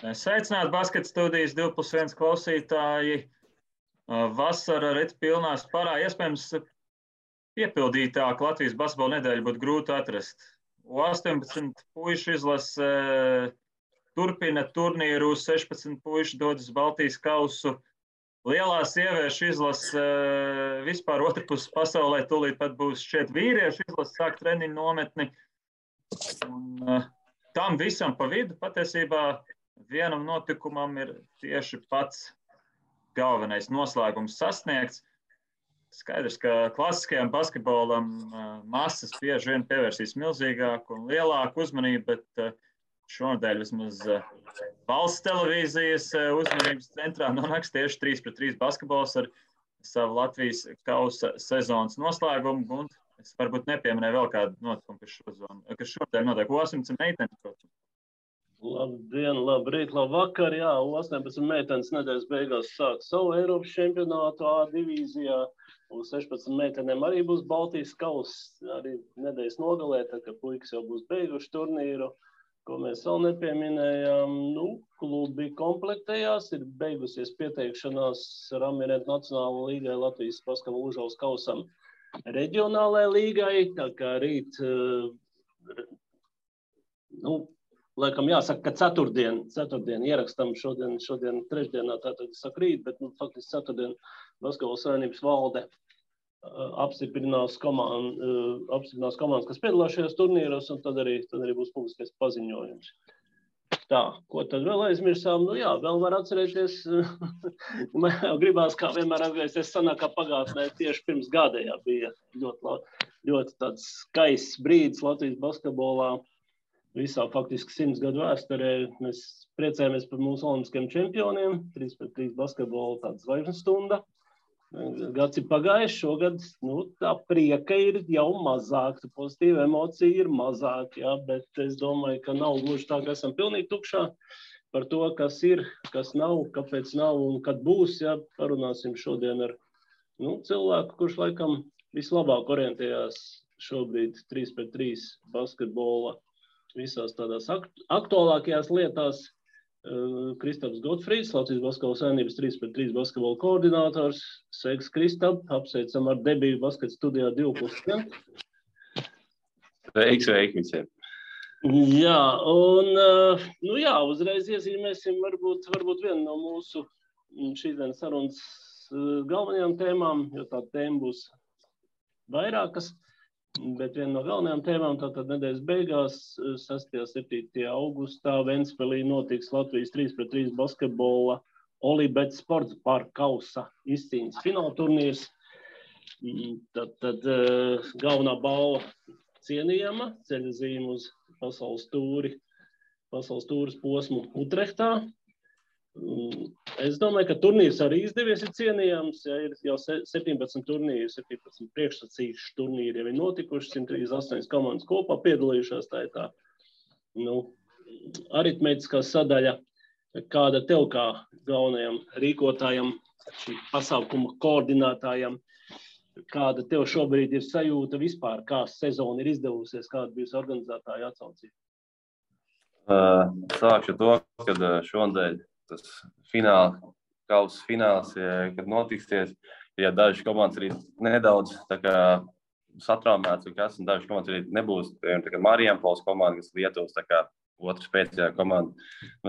Sveicināti Basket studijas 2+1 klausītāji. Vasara rit pilnā sparā. Iespējams, piepildītāk Latvijas basketbola nedēļu būtu grūti atrast. U18 puišu izlase turpina turnīru, 16 puiši dodas Baltijas kausu. Lielā sieviešu izlase vispār otrpus pasaulē tūlīt pat būs šķiet vīriešu izlase, sāk treniņu nometni. Un tam visam pa vidu patiesībā vienam notikumam ir tieši pats galvenais noslēgums sasniegts. Skaidrs, ka klasiskajam basketbolam masas bieži vien pievērsīs milzīgāku un lielāku uzmanību, bet šonadēļ vismaz valsts televīzijas uzmanības centrā nonāks tieši 3-3 basketbols ar savu Latvijas kausa sezonas noslēgumu. Un es varbūt nepieminēju vēl kādu notikumu, kas šonadēļ notiek U18 meitenes, protams. Labdien, labrīt, labvakar. Jā, U18 meitenes nedēļas beigās sāk savu Eiropas čempionātu A divīzijā. U16 meitenēm arī būs Baltijas kauss, arī nedēļas nogalē, tā ka puikas jau būs beiguši turnīru, ko mēs vēl nepieminējām. Klubi komplektējās, ir beigusies pieteikšanās Ramiret Nacionāla līgai, Latvijas basketbola Užavas kausam reģionālajai līgai, tā kā rīt, laikam jāsaka, ka ceturtdien ierakstam šodien trešdienā, tātad saka rīt, bet faktiski ceturtdien Basketbola savienības valde apstiprinās komandas, kas piedalās šajos turnīros, un tad arī būs publiskais paziņojums. Tā, ko tad vēl aizmirsām? Vēl var atcerēties, man jau gribās kā vienmēr atgriezties sanākā pagātnē, tieši pirms gada bija ļoti tāds skaists brīdis Latvijas basketbolā. Visā faktiski 100 gadu vēsturē mēs priecājamies par mūsu olimpiskajiem čempioniem. 3-3 basketbola tāda zvaigžņu stunda. Gads ir pagājis, šogad tā prieka ir jau mazāk, pozitīva emocija ir mazāk, bet es domāju, ka nav gluži tā, ka esam pilnīgi tukšā par to, kas ir, kas nav, kāpēc nav un kad būs. Parunāsim šodien ar cilvēku, kurš laikam vislabāk orientējās šobrīd 3-3 basketbola visās tādās aktuālākajās lietās. Kristaps Gotfrīds, Latvijas basketbola savienības 3-3 basketbola koordinators. Sveiks, Kristap, apsveicam ar debiju basket studijā 2+1. Sveiki visiem. Jā, un uzreiz iezīmēsim varbūt vienu no mūsu šīsdienas sarunas galvenajām tēmām, jo tā tēma būs vairākas. Bet viena no galvenajām tēmām tātad nedēļas beigās, 6.7. augustā Ventspilī notiks Latvijas 3-3 basketbola Olibet sports parka kausa izcīņas fināla turnīrs. Tad galvenā balva cienījama, ceļazīme uz pasaules tūres posmu Utrehtā. Es domāju, ka turnīrs arī izdevies ir cienījams, ir jau 17 turnīri, 17 priekšsacīšu turnīri jau ir notikuši, 138 komandas kopā piedalījušās, tā ir tā, aritmētiskā sadaļa, kāda tev kā galvenajam rīkotājam, šī pasaukuma koordinātājam, kāda tev šobrīd ir sajūta vispār, kā sezona ir izdevusies, kāda bijusi organizētāja atsaucība? Sākšu to, kad šonadēļ tas kausa fināls, kad notiksies, dažas komandas arī nedaudz satraumētas, un dažas komandas arī nebūs. Marijampils komanda, kas Lietuvas otrs spēcīgā komanda.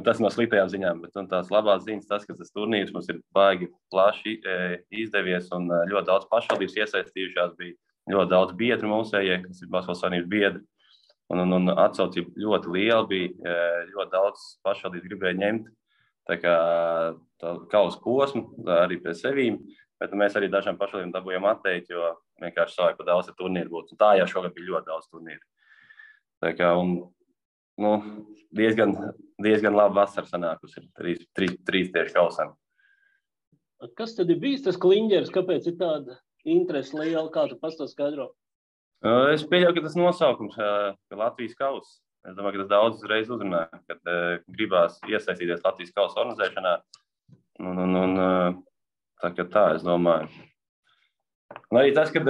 Tas no sliktajām ziņām, bet tās labās ziņas tas, ka tas turnīrs mums ir baigi plaši izdevies un ļoti daudz pašvaldības iesaistījušās, bija ļoti daudz biedru mūsējie, kas ir Basketbola savienības biedri. Un atsaucība ļoti liela bija, ļoti daudz pašvaldības gribēja ņemt tā kausa posmu arī pie sevīm, bet mēs arī dažām pašvaldībām dabūjām atteikt, jo vienkārši savāk pa daudz turnīru būtu. Un tā jau šogad bija ļoti daudz turnīru. Diezgan labi vasara sanākusi, 3 tieši kausam. Kas tad ir bijis tas kliņģeris? Kāpēc ir tāda interese liela? Kā tu pats to skaidro? Es pieļauju, ka tas nosaukums, ka Latvijas kauss. Es domāju, ka tas daudz reiz uzrunāja, kad gribās iesaistīties Latvijas kausa organizēšanā. Tā, es domāju. Un arī tas, ka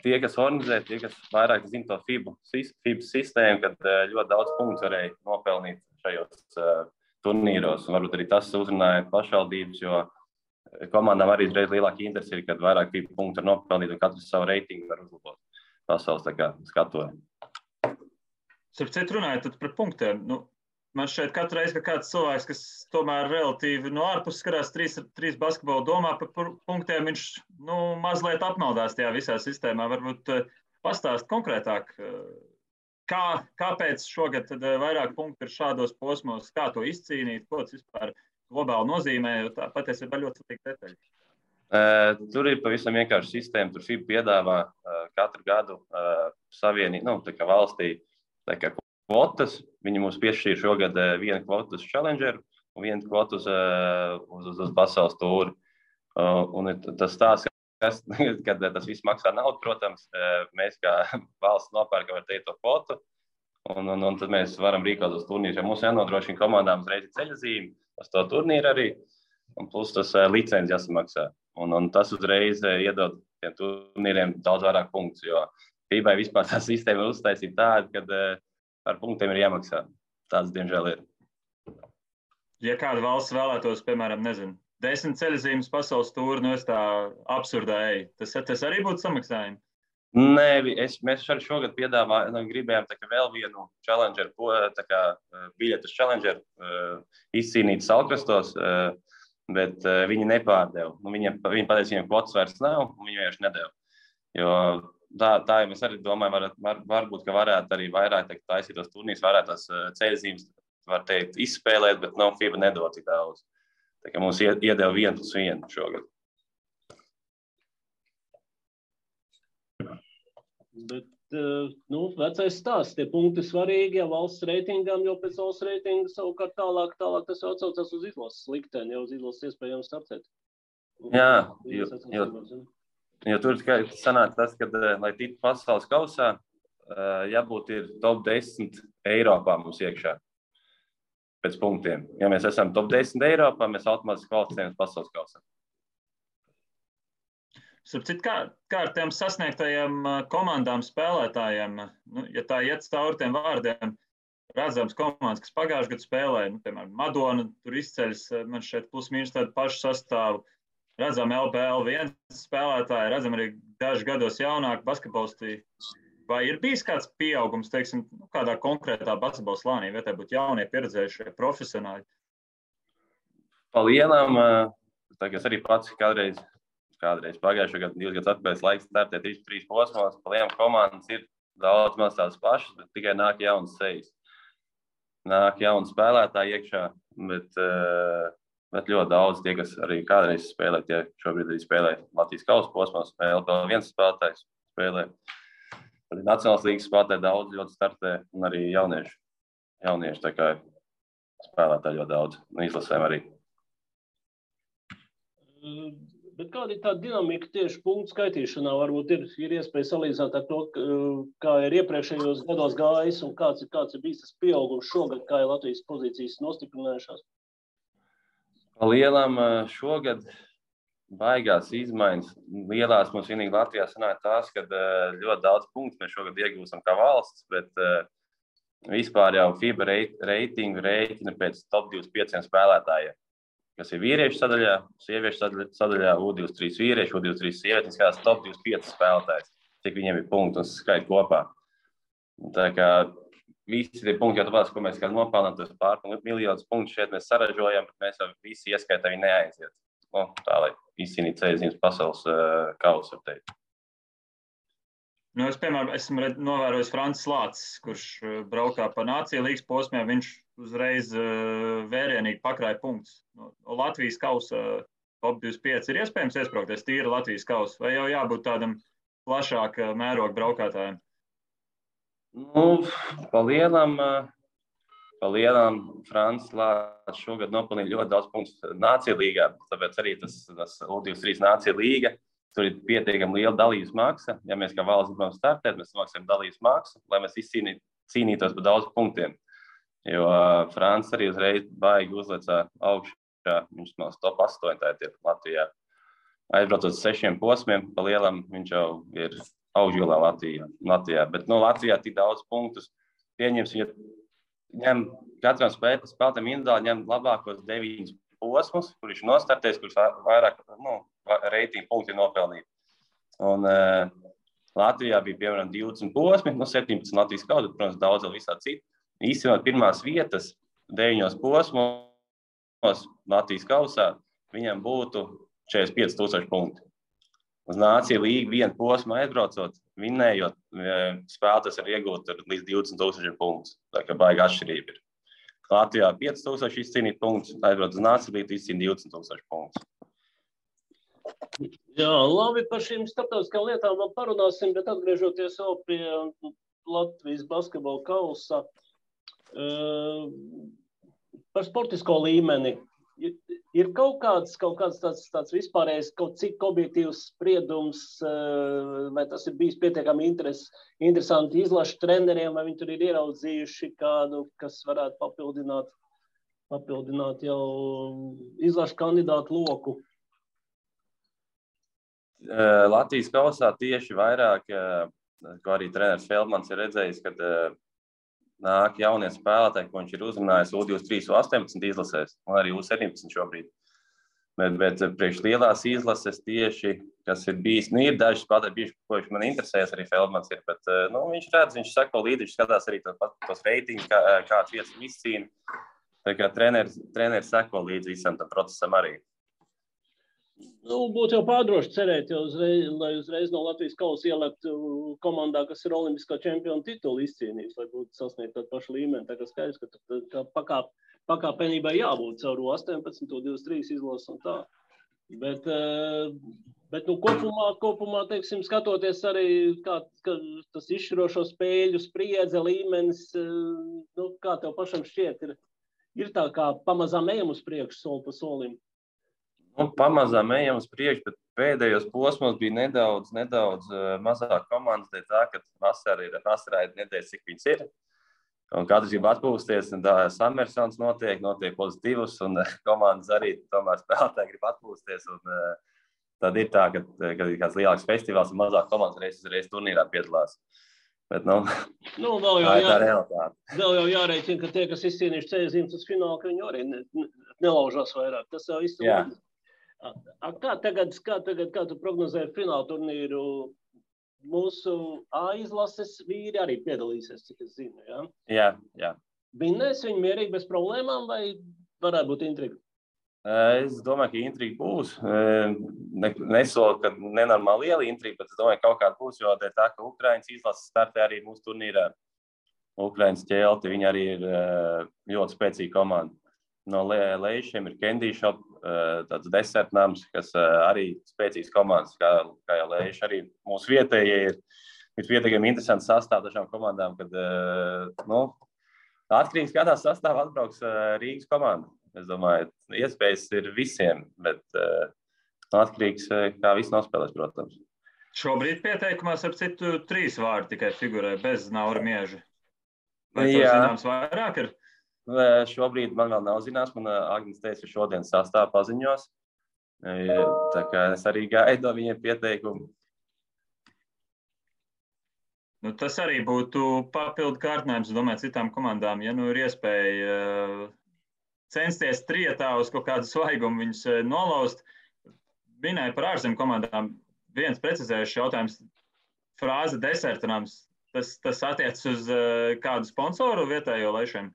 tie, kas organizē, tie, kas vairāk zina to FIBA sistēmu, kad ļoti daudz punktu varēja nopelnīt šajos turnīros. Un varbūt arī tas uzrunāja pašvaldības, jo komandām arī reiz lielāka interesi ir, kad vairāk FIBA punktu var nopelnīt un katrs savu reitingu var uzlabot pasaules skatojumu. Starp citu runājot par punktiem, man šeit katru reizi, ka kāds cilvēks, kas tomēr relatīvi no ārpuses skatās trīs basketbolu domā par punktiem, viņš mazliet apmaldās tajā visā sistēmā. Varbūt pastāst konkrētāk, kāpēc šogad tad vairāk punktu ir šādos posmos, kā to izcīnīt, ko tas vispār globāli nozīmē, jo tā patiesībā ļoti svarīga detaļa. Tur ir pavisam vienkārši sistēma. Tur FIBA piedāvā katru gadu valstī kvotas. Viņi mums piešķīra šogad vienu kvotu uz Challengeru un vienu kvotu uz pasaules tūri. Un tas stāsts, kad tas viss maksā naudu, protams, mēs kā valsts nopērkam ar to kvotu, un tad mēs varam rīkot uz turnīriem. Mums jānodrošina komandām uzreiz ceļazīme uz to turnīru arī, un plus tas licenci jāsamaksā. Un tas uzreiz iedod tiem turnīriem daudz vairāk punktus, jo FIBA vispār tā sistēma ir uztaisīta tāda, kad par punktiem ir jāmaksā. Tāds, diemžēl, ir. Ja kāda valsts vēlētos, piemēram, 10 ceļazīmes pasaules tūri, es tā absurdā eju, tas arī būtu samaksājumi? Nē, mēs arī šogad gribējām vēl vienu Challenger, biļetu uz Challenger izcīnīt Salkrastos, bet viņi nepārdeva. Viņi pateica, viņiem kvotas vairs nav, un viņi vienkārši nedeva. Jo tā mēs arī domājam, varbūt, ka varētu arī vairāk taisīt tos turnīrus, varētu tās ceļazīmes, var teikt, izspēlēt, bet FIBA nedod tik daudz. Tā kā mums iedeva 1+1 šogad. Bet, vecais stāsts, tie punkti svarīgi, ja valsts reitingām, jo pēc valsts reitinga savukārt tālāk tas atsaucās uz izlases likteni, jau uz izlases iespējams startēt. Jā, jo tur sanāk tas, ka, lai tiktu pasaules kausā, jābūt ir top 10 Eiropā mums iekšā pēc punktiem. Ja mēs esam top 10 Eiropā, mēs automātiski kvalificējamies pasaules kausā. Kā ar tiem sasniegtajiem komandām, spēlētājiem, ja tā iet cauri tiem vārdiem, redzams komandas, kas pagājušajā gadā spēlēja, piemēram, Madona, tur izceļas, man šeit plus-mīnus tādu pašu sastāvu, redzam LPL1 spēlētāji, redzam arī dažu gados jaunāku basketbolisti. Vai ir bijis kāds pieaugums, teiksim, kādā konkrētā basketbola slānī, vai tā būtu jaunie, pieredzējušie profesionāļi? Palielam, es arī pats kādreiz pagājušajā gadā, 2 gadus atpēc laiks startēt 3 posmos, palielam komandas ir daudz maz tās pašas, bet tikai nāk jaunas sejas. Nāk jauni spēlētāji iekšā, bet ļoti daudz tie, kas arī kādreiz spēlē, tie šobrīd arī spēlē Latvijas kausa posmos, LPL1 spēlētājs spēlē. Arī Nacionālās līgas spēlētāji daudz ļoti startē, un arī jaunieši tā kā spēlētāji ļoti daudz, un izlasēm arī. Bet kāda ir tā dinamika tieši punktu skaitīšanā? Varbūt ir iespēja salīdzināt ar to, kā ir iepriekšējos gados gājis un kāds ir bijis tas pieaugums šogad, kā ir Latvijas pozīcijas nostiprinājušās? Lielam šogad baigās izmaiņas. Lielās mums vienīgi Latvijā sanāk tās, ka ļoti daudz punktu mēs šogad iegūstam kā valsts, bet vispār jau FIBA reitingu rēķina pēc top 25 spēlētājiem. Kas ir vīriešu sadaļā, sieviešu sadaļā, U23 vīrieši, U23 sievietes, kādās top 25 spēlētājs, cik viņiem ir punkti un skait kopā. Tā kā visi tie punkti, jau tāpēc, ko mēs kā nopelnām, tas pārpilnīt miljonus punktu šeit mēs saražojam, bet mēs jau visi ieskaitā viņi neaiziet. Tā, lai izcīnītu ceļazīmes pasaules kausu, var teikt. Es, piemēram, esmu novērojis Francis Lācis, kurš braukā pa Nāciju līgas posmiem, viņš uzreiz vērienīgi pakrāja punktus. Latvijas kausa top 25 ir iespējams iesprāgties tīri Latvijas kausa, vai jau jābūt tādam plašāk mēroga braukātājiem? Palielam Francis Lācis šogad nopelnīja ļoti daudz punktus Nāciju līgā, tāpēc arī tas U23 Nāciju līga. Tur ir pietiekami liela dalības maksa. Ja mēs kā valsts gribam startēt, mēs samaksājam dalības maksu, lai mēs cīnītos par daudz punktiem. Jo Francis arī uzreiz baigi uzlecā augšā, viņš no top 8 tātad Latvijā. Aizbraucot uz 6 posmiem, pa lielam viņš jau ir augšgalā Latvijā. Bet Latvijā tik daudz punktus pieņems, ja ņem katram spēlētājam individuāli ņem labākos 9 posmus, kur viņš nostartēs, kurš vairāk reitingu punkti nopelnīt. Un Latvijā bija, piemēram, 20 posmi, 17 Latvijas kausa, protams, daudz vēl visā citu. Īstenībā pirmās vietas 9 posmos Latvijas kausā viņam būtu 45,000 punkti. Uz Nāciju līgu vienu posmu aizbraucot, vinnējot, spēlētājs var iegūt līdz 20,000 punktus. Tā kā baigi atšķirība ir. Latvijā 5,000 izcīnīt punktus, aizbrauc uz Nāciju līgu izcīnīt 20,000 punktus. Jā, labi, par šīm starptautiskām lietām vēl parunāsim, bet atgriežoties vēl pie Latvijas basketbola kausa, par sportisko līmeni. Ir kaut kāds tāds vispārējais, kaut cik objektīvs spriedums, vai tas ir bijis pietiekami interesanti izlašu treneriem, vai viņi tur ir ieraudzījuši kādu, kas varētu papildināt jau izlašu kandidātu loku? Latvijas kausā tieši vairāk, ko arī treneris Feldmans ir redzējis, kad nāk jaunie spēlētāji, ko viņš ir uzrunājis U23, U18 izlasēs, un arī U17 šobrīd. Bet priekš lielās izlases tieši, kas ir bijis, ir daži spēlētāji, ko viņš man interesēs, arī Feldmans ir, bet viņš redz, viņš sako līdzi, viņš skatās arī tos reitingus, kāds vietas izcīna. Tā kā treneris sako līdzi visam tam procesam arī. Būtu jau pārdroši cerēt, lai uzreiz no Latvijas kausa ielikt komandā, kas ir olimpiskā čempiona titulu izcīnījis, lai būtu sasniegt tādu pašu līmeni. Tā kā skaidrs, ka pakāpenībai jābūt caur 18, 23 izlases un tā. Bet kopumā, teiksim, skatoties arī, kā tas izšķirošo spēļu spriedze, līmenis, kā tev pašam šķiet, ir tā kā pamazām ejam uz priekšu soli pa solim. Pamazām ejam uz priekšu, bet pēdējos posmos bija nedaudz mazāk komandas, dēļ tā, ka vasarā ir nedēļas, cik viņas ir. Un katrs grib atpūsties, un tā samersons notiek pozitīvus, un komandas arī tomēr spēlētāji grib atpūsties. Un tad ir tā, kad ir kāds lielāks festivāls un mazāk komandas reiz turnīrā piedalās. Bet, vēl jau jārēķina, ka tie, kas izcīnījuši ceļzīmes uz finālu, ka viņi arī nelaužās vairāk. Tas jau viss ir. Kā tu prognozēji fināla turnīru? Mūsu A izlases vīri arī piedalīsies, cik es zinu, jā? Jā. Vinnēs viņi mierīgi bez problēmām vai varētu būt intriga? Es domāju, ka intriga būs. Nesolu, ka nenormāli liela intriga, bet es domāju, ka kaut kāda būs, jo tā, ka Ukrainas izlases startē arī mūsu turnīrā. Ukrainas ķelti, viņi arī ir ļoti spēcīga komanda. No Leišiem ir Candy Shop, tāds desertnams, kas arī spēcīgs komandas, kā jau Leiši. Arī mūsu vietējie ir pietiekami interesants sastāv dažām komandām, kad atkarīgs kādā sastāvā atbrauks Rīgas komanda. Es domāju, iespējas ir visiem, bet atkarīgs, kā viss nospēlēs, protams. Šobrīd pieteikumās ar citu 3 vārdi tikai figurē, bez Naura Mieža. Vai to zināms vairāk ir? Šobrīd man vēl nav zināms, man Agnes teica, ka šodien sastāv paziņos. Tā kā es arī gaidu viņiem pieteikumu. Tas arī būtu papildu kārtinājums, domāju, citām komandām. Ja ir iespēja censties trietā uz kaut kādu svaigumu viņus nolaust, minēja par ārzemju komandām. Viens precizējušs jautājums, frāze desertinājums, tas attiec uz kādu sponsoru vietējo Leišiem?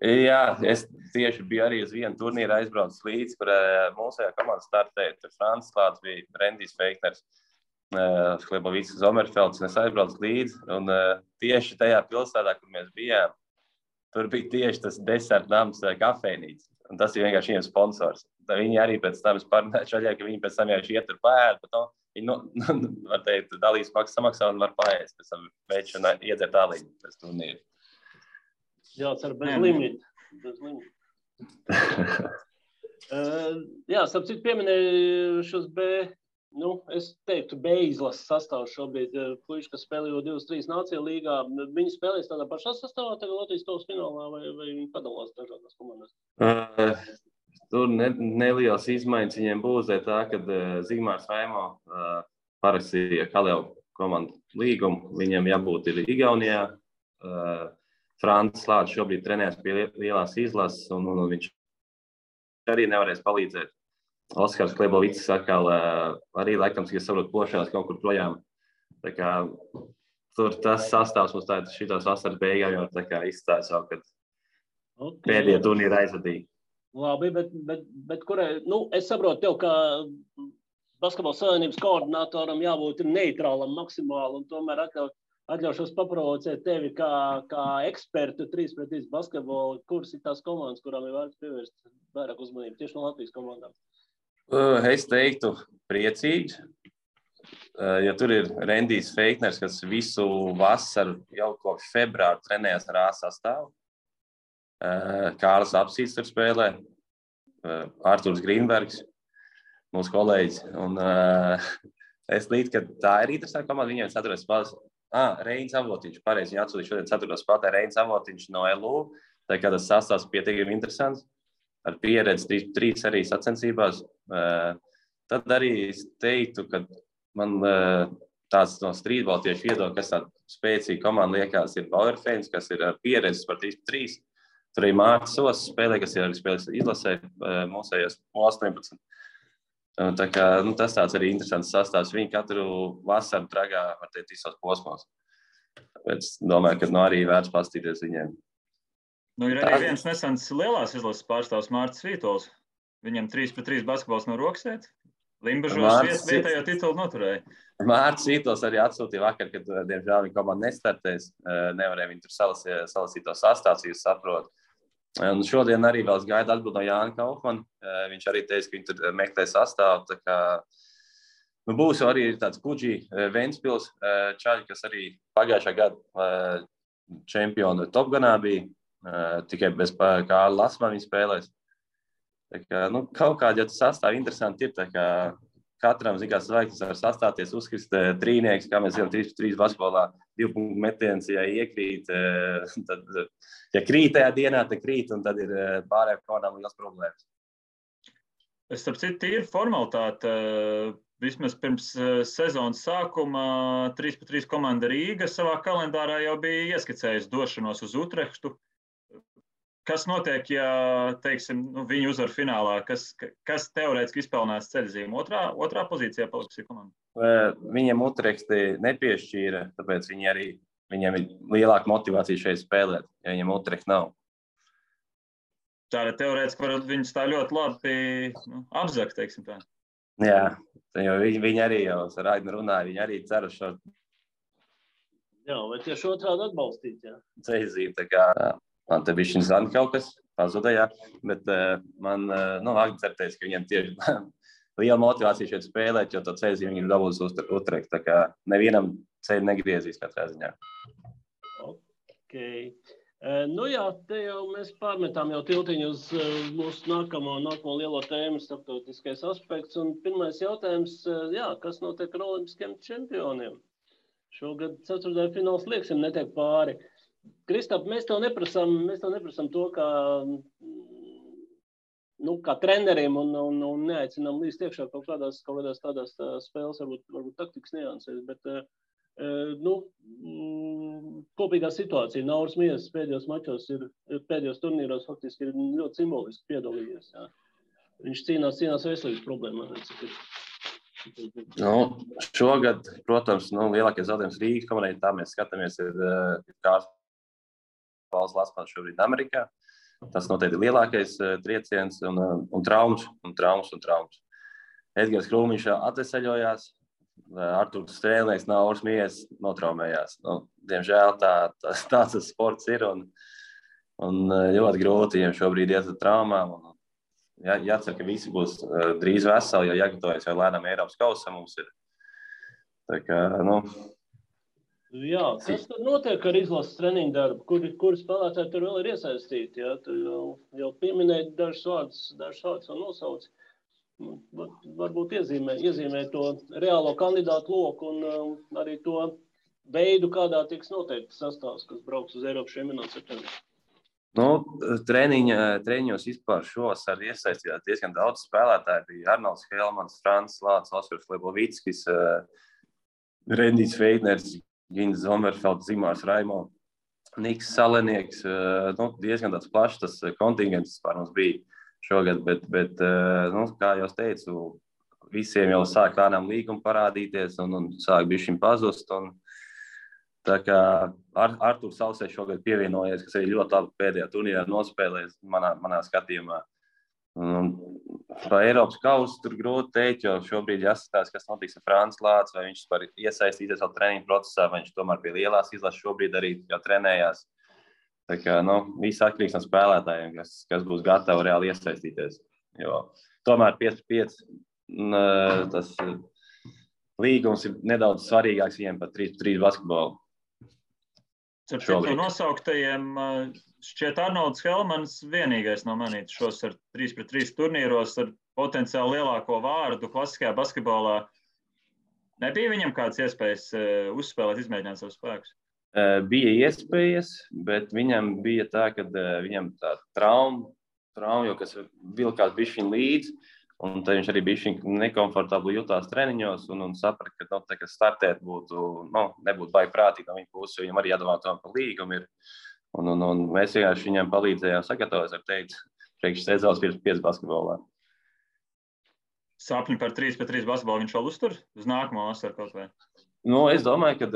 Jā, es tieši biju arī uz vienu turnīru aizbraucis līdzi, kur mūsējā komanda startēja. Tur Francis klāts bija, Rendijs Feikners, Hlebovits Zomerfelds, un es aizbraucu līdzi. Un tieši tajā pilsētā, kur mēs bijām, tur bija tieši tas desertnams kafejnīca. Un tas ir vienkārši viņiem sponsors. Viņi arī pēc tam parunāja šaļā, ka viņi pēc tam vienkārši iet tur paēd, bet viņi, var teikt, dalīs maksas samaksā un var paēst. Pēc tam veids un iedzert āliņu pēc turnīru. Jācer bez limita. Starp citu pieminēju šos es teiktu B izlases sastāvu šobrīd. Puiši, kas spēlējo 23 Nāciju līgā, viņi spēlēs tādā pašā sastāvā tagad Latvijas kausa finālā vai viņi padalās dažādās komandās? Tur nelielas izmaiņas viņiem būs, tā, kad Zigmārs Vaimo parakstīja Kalēvu komandu līgumu. Viņam jābūt ir Igaunijā. Francis Lāčs šobrīd trenēs pie lielās izlases, un viņš arī nevarēs palīdzēt. Oskars Klebovics atkal arī laikam, ja saprot, plošās kaut kur projām. Tā kā tur tas sastāvs mums tātad šitās vasaras beigām jau tā kā izstāja savu, kad pēdējie turnīri aizvadīja. Labi, bet kurai, es saprotu tev, ka Basketbola savienības koordinatoram jābūt neitrālam maksimāli, un tomēr atļaušos paprovocēt tevi kā ekspertu 3-3 basketbolu, kuras ir tās komandas, kurām ir vērts pievērst vairāk uzmanību tieši no Latvijas komandām? Es teiktu priecīgi, jo tur ir Rendijs Feikners, kas visu vasaru jau kopš februāra trenējas ar A sastāvu. Kārlis Apsīts tur spēlē, Arturs Grīnbergs, mūsu kolēģis. Un es līdz, ka tā ir interesanta komanda, viņiem 4. spēlēs. Reinis Avotiņš, pareizi, viņi atsūtīja šodien 4. spēlē, Reinis Avotiņš no LU. Tā kā tas sastāvs pietiekami interesants, ar pieredzi 3 arī sacensībās. Tad arī es teiktu, ka man tāds no streetball tieši viedokļa, kas tāda spēcīga komanda liekas, ir Bauerfēns, kas ir pieredzes par 3-3. Tur arī Mārcis Sos spēlē, kas ir arī spēlēs izlasē mūsējos 18. Tā kā, tas tāds arī interesants sastāvs. Viņi katru vasaru tragā, var teikt, visos posmos. Tāpēc domāju, ka arī vērts pastīties viņiem. Ir arī viens nesens lielās izlases pārstāvs Mārcis Vītols. Viņam 3-3 basketbols no rokas iet. Limbažos vietējo titulu noturēja. Mārcis Vītols arī atsūtīja vakar, kad, diemžēl, viņa komanda nestartēs. Nevarēja viņi tur salasīt to sastāvs, jūs saprot. Un šodien arī vēl gaida atbildi no Jāna Kaufmana. Viņš arī teica, ka viņi tur meklē sastāvu. Tā kā, būs jau arī tāds Kuģi Ventspils čaļi, kas arī pagājušā gada čempionu Topganā bija. Tikai bez Kārla Lasmana viņi spēlēs. Tā kā, kaut kādi jau tas sastāvi interesanti ir. Tā kā katram, zināms, zvaigznes var sastāties, uzkrist trīnieks, kā mēs zinām, 3-3 basketbolā, 2 punktu metiens, ja iekrīt, tad, ja krīt tajā dienā, tad krīt, un tad ir pārējām komandām liels problēmas. Starp citu, tīri formalitāte, vismaz pirms sezonas sākuma 3-3 komanda Rīga savā kalendārā jau bija ieskicējusi došanos uz Utrehtu. Kas notiek, ja, teiksim, viņi uzvar finālā? Kas teorētiski izpelnās ceļzīme? Otrā pozīcijā paliks komanda? Viņiem Utrehti nepiešķīra, tāpēc viņiem ir lielāka motivācija šeit spēlēt, ja viņiem Utrehti nav. Tāda teorētiski varētu viņus tā ļoti labi apzakt, teiksim tā. Jā, jo viņi arī jau ar Aignu runāja, viņi arī cer uz šo. Jā, vai tieši otrādi atbalstīt, jā? Ceļzīme, tā kā. Man te bija šis zani kaut kas pazudējā, bet man Agni certēs, ka viņiem tieši liela motivācija šeit spēlēt, jo to ceļzīmi viņi dabūs uz Utrehtu, tā kā nevienam ceļu negriezīs katrā ziņā. Ok. Jā, te jau mēs pārmetām jau tiltiņu uz mūsu nākamo lielo tēmu, starptautiskais aspekts, un pirmais jautājums, kas notiek ar olimpiskiem čempioniem? Šogad ceturtdaļfināls lieksim netiek pāri. Kristap, mēs tev neprasām to, kā treneriem un neaicinām līdz iekšā kaut kādās tādās spēles, varbūt taktikas niansēs, bet kopīgā situācija. Nauris Miesas pēdējos mačos pēdējos turnīros faktiski ir ļoti simboliski piedalījies. Jā. Viņš cīnās veselības problēmās. Šogad, protams, lielākais zaudējums Rīgas komandai, tā mēs skatāmies, ir Kārlis Lasmans šobrīd Amerikā. Tas noteikti ir lielākais trieciens un traumas. Edgars Krūmiņš atveseļojās, Arturs Strēlnieks, Nauris Miesas notraumējās. Diemžēl tāds tas sports ir un ļoti grūti viņiem šobrīd iet ar traumām. Jācer, ka visi būs drīz veseli, jo jāgatavojas jau lēnām Eiropas kausam mums ir. Tā kā, Jā, kas tad notiek ar izlases treniņu darbu? Kuri spēlētāji tur vēl ir iesaistīti? Jā? Tu jau pieminēji dažus vārdus un nosauci. Varbūt iezīmē to reālo kandidātu loku un arī to veidu, kādā tiks noteikti sastāvs, kas brauks uz Eiropas čempionātu septembrī. Treniņos vispār šovasar iesaistījās diezgan daudz spēlētāji. Bija Arnolds Helmans, Francis Lāčs, Oskars Klebovickis, Rendijs Feikners, Gins Zomerfelds, Zimārs Raimo. Niks Salenieks, diezgan tāds plašs tas kontingents par mums bija šogad, bet kā jau teicu, visiem jau sāk lēnām līguma parādīties un sāk bišķiņ pazust. Tā kā Arturs Sausē šogad pievienojies, kas arī ļoti labi pēdējā turnīrā nospēlēs manā skatījumā. Par Eiropas kausu tur grūti teikt, jo šobrīd jāskatās, kas notiks ar Frāns Lācis, vai viņš var iesaistīties vēl treniņu procesā, vai viņš tomēr pie lielās izlases šobrīd arī jau trenējās. Tā kā, viss atkarīgs no spēlētājiem, kas būs gatavi reāli iesaistīties. Jo tomēr 5-5 tas līgums ir nedaudz svarīgāks viņiem par 3-3 basketbolu. Ar citu nosauktajiem šķiet Arnolds Helmans vienīgais no manītas šos ar 3-3 turnīros ar potenciāli lielāko vārdu klasiskajā basketbolā. Nebija viņam kādas iespējas uzspēlēt, izmēģināt savus spēkus? Bija iespējas, bet viņam bija tā, ka viņam tā trauma, jo kas vilkās bišķiņ līdzi, un tad viņš arī bišķiņ nekomfortabli jutās treniņos un saprata, ka startēt nebūtu baigi prātīgi no viņa puses, jo viņam arī jādomā tomēr par līgumu ir. Un mēs vienkārši viņam palīdzējām sagatavoties, teikt, priekš sezonas 5 basketbolā. Sapņi par 3-3 basketbolu viņš vēl uztur uz nākamo vasaru kaut vai? Es domāju, ka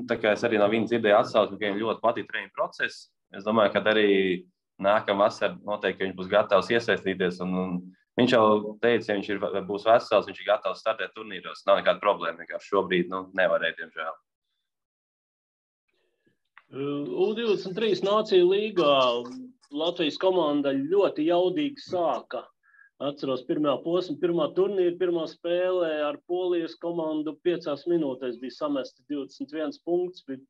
tā kā es arī no viņa dzirdēju atsauksmi, ka viņam ļoti patīk treniņu process. Es domāju, ka arī nākamā vasara noteikti viņš būs gatavs iesaistīties. Un viņš jau teica, ja viņš būs vesels, viņš ir gatavs startēt turnīros. Nav nekāda problēma, vienkārši šobrīd nevarēja, diemžēl. U23 Nāciju līgā Latvijas komanda ļoti jaudīgi sāka. Atceros pirmā posma, pirmā turnīra, pirmā spēlē ar Polijas komandu 5 minūtēs bija samesti 21 punkts, bija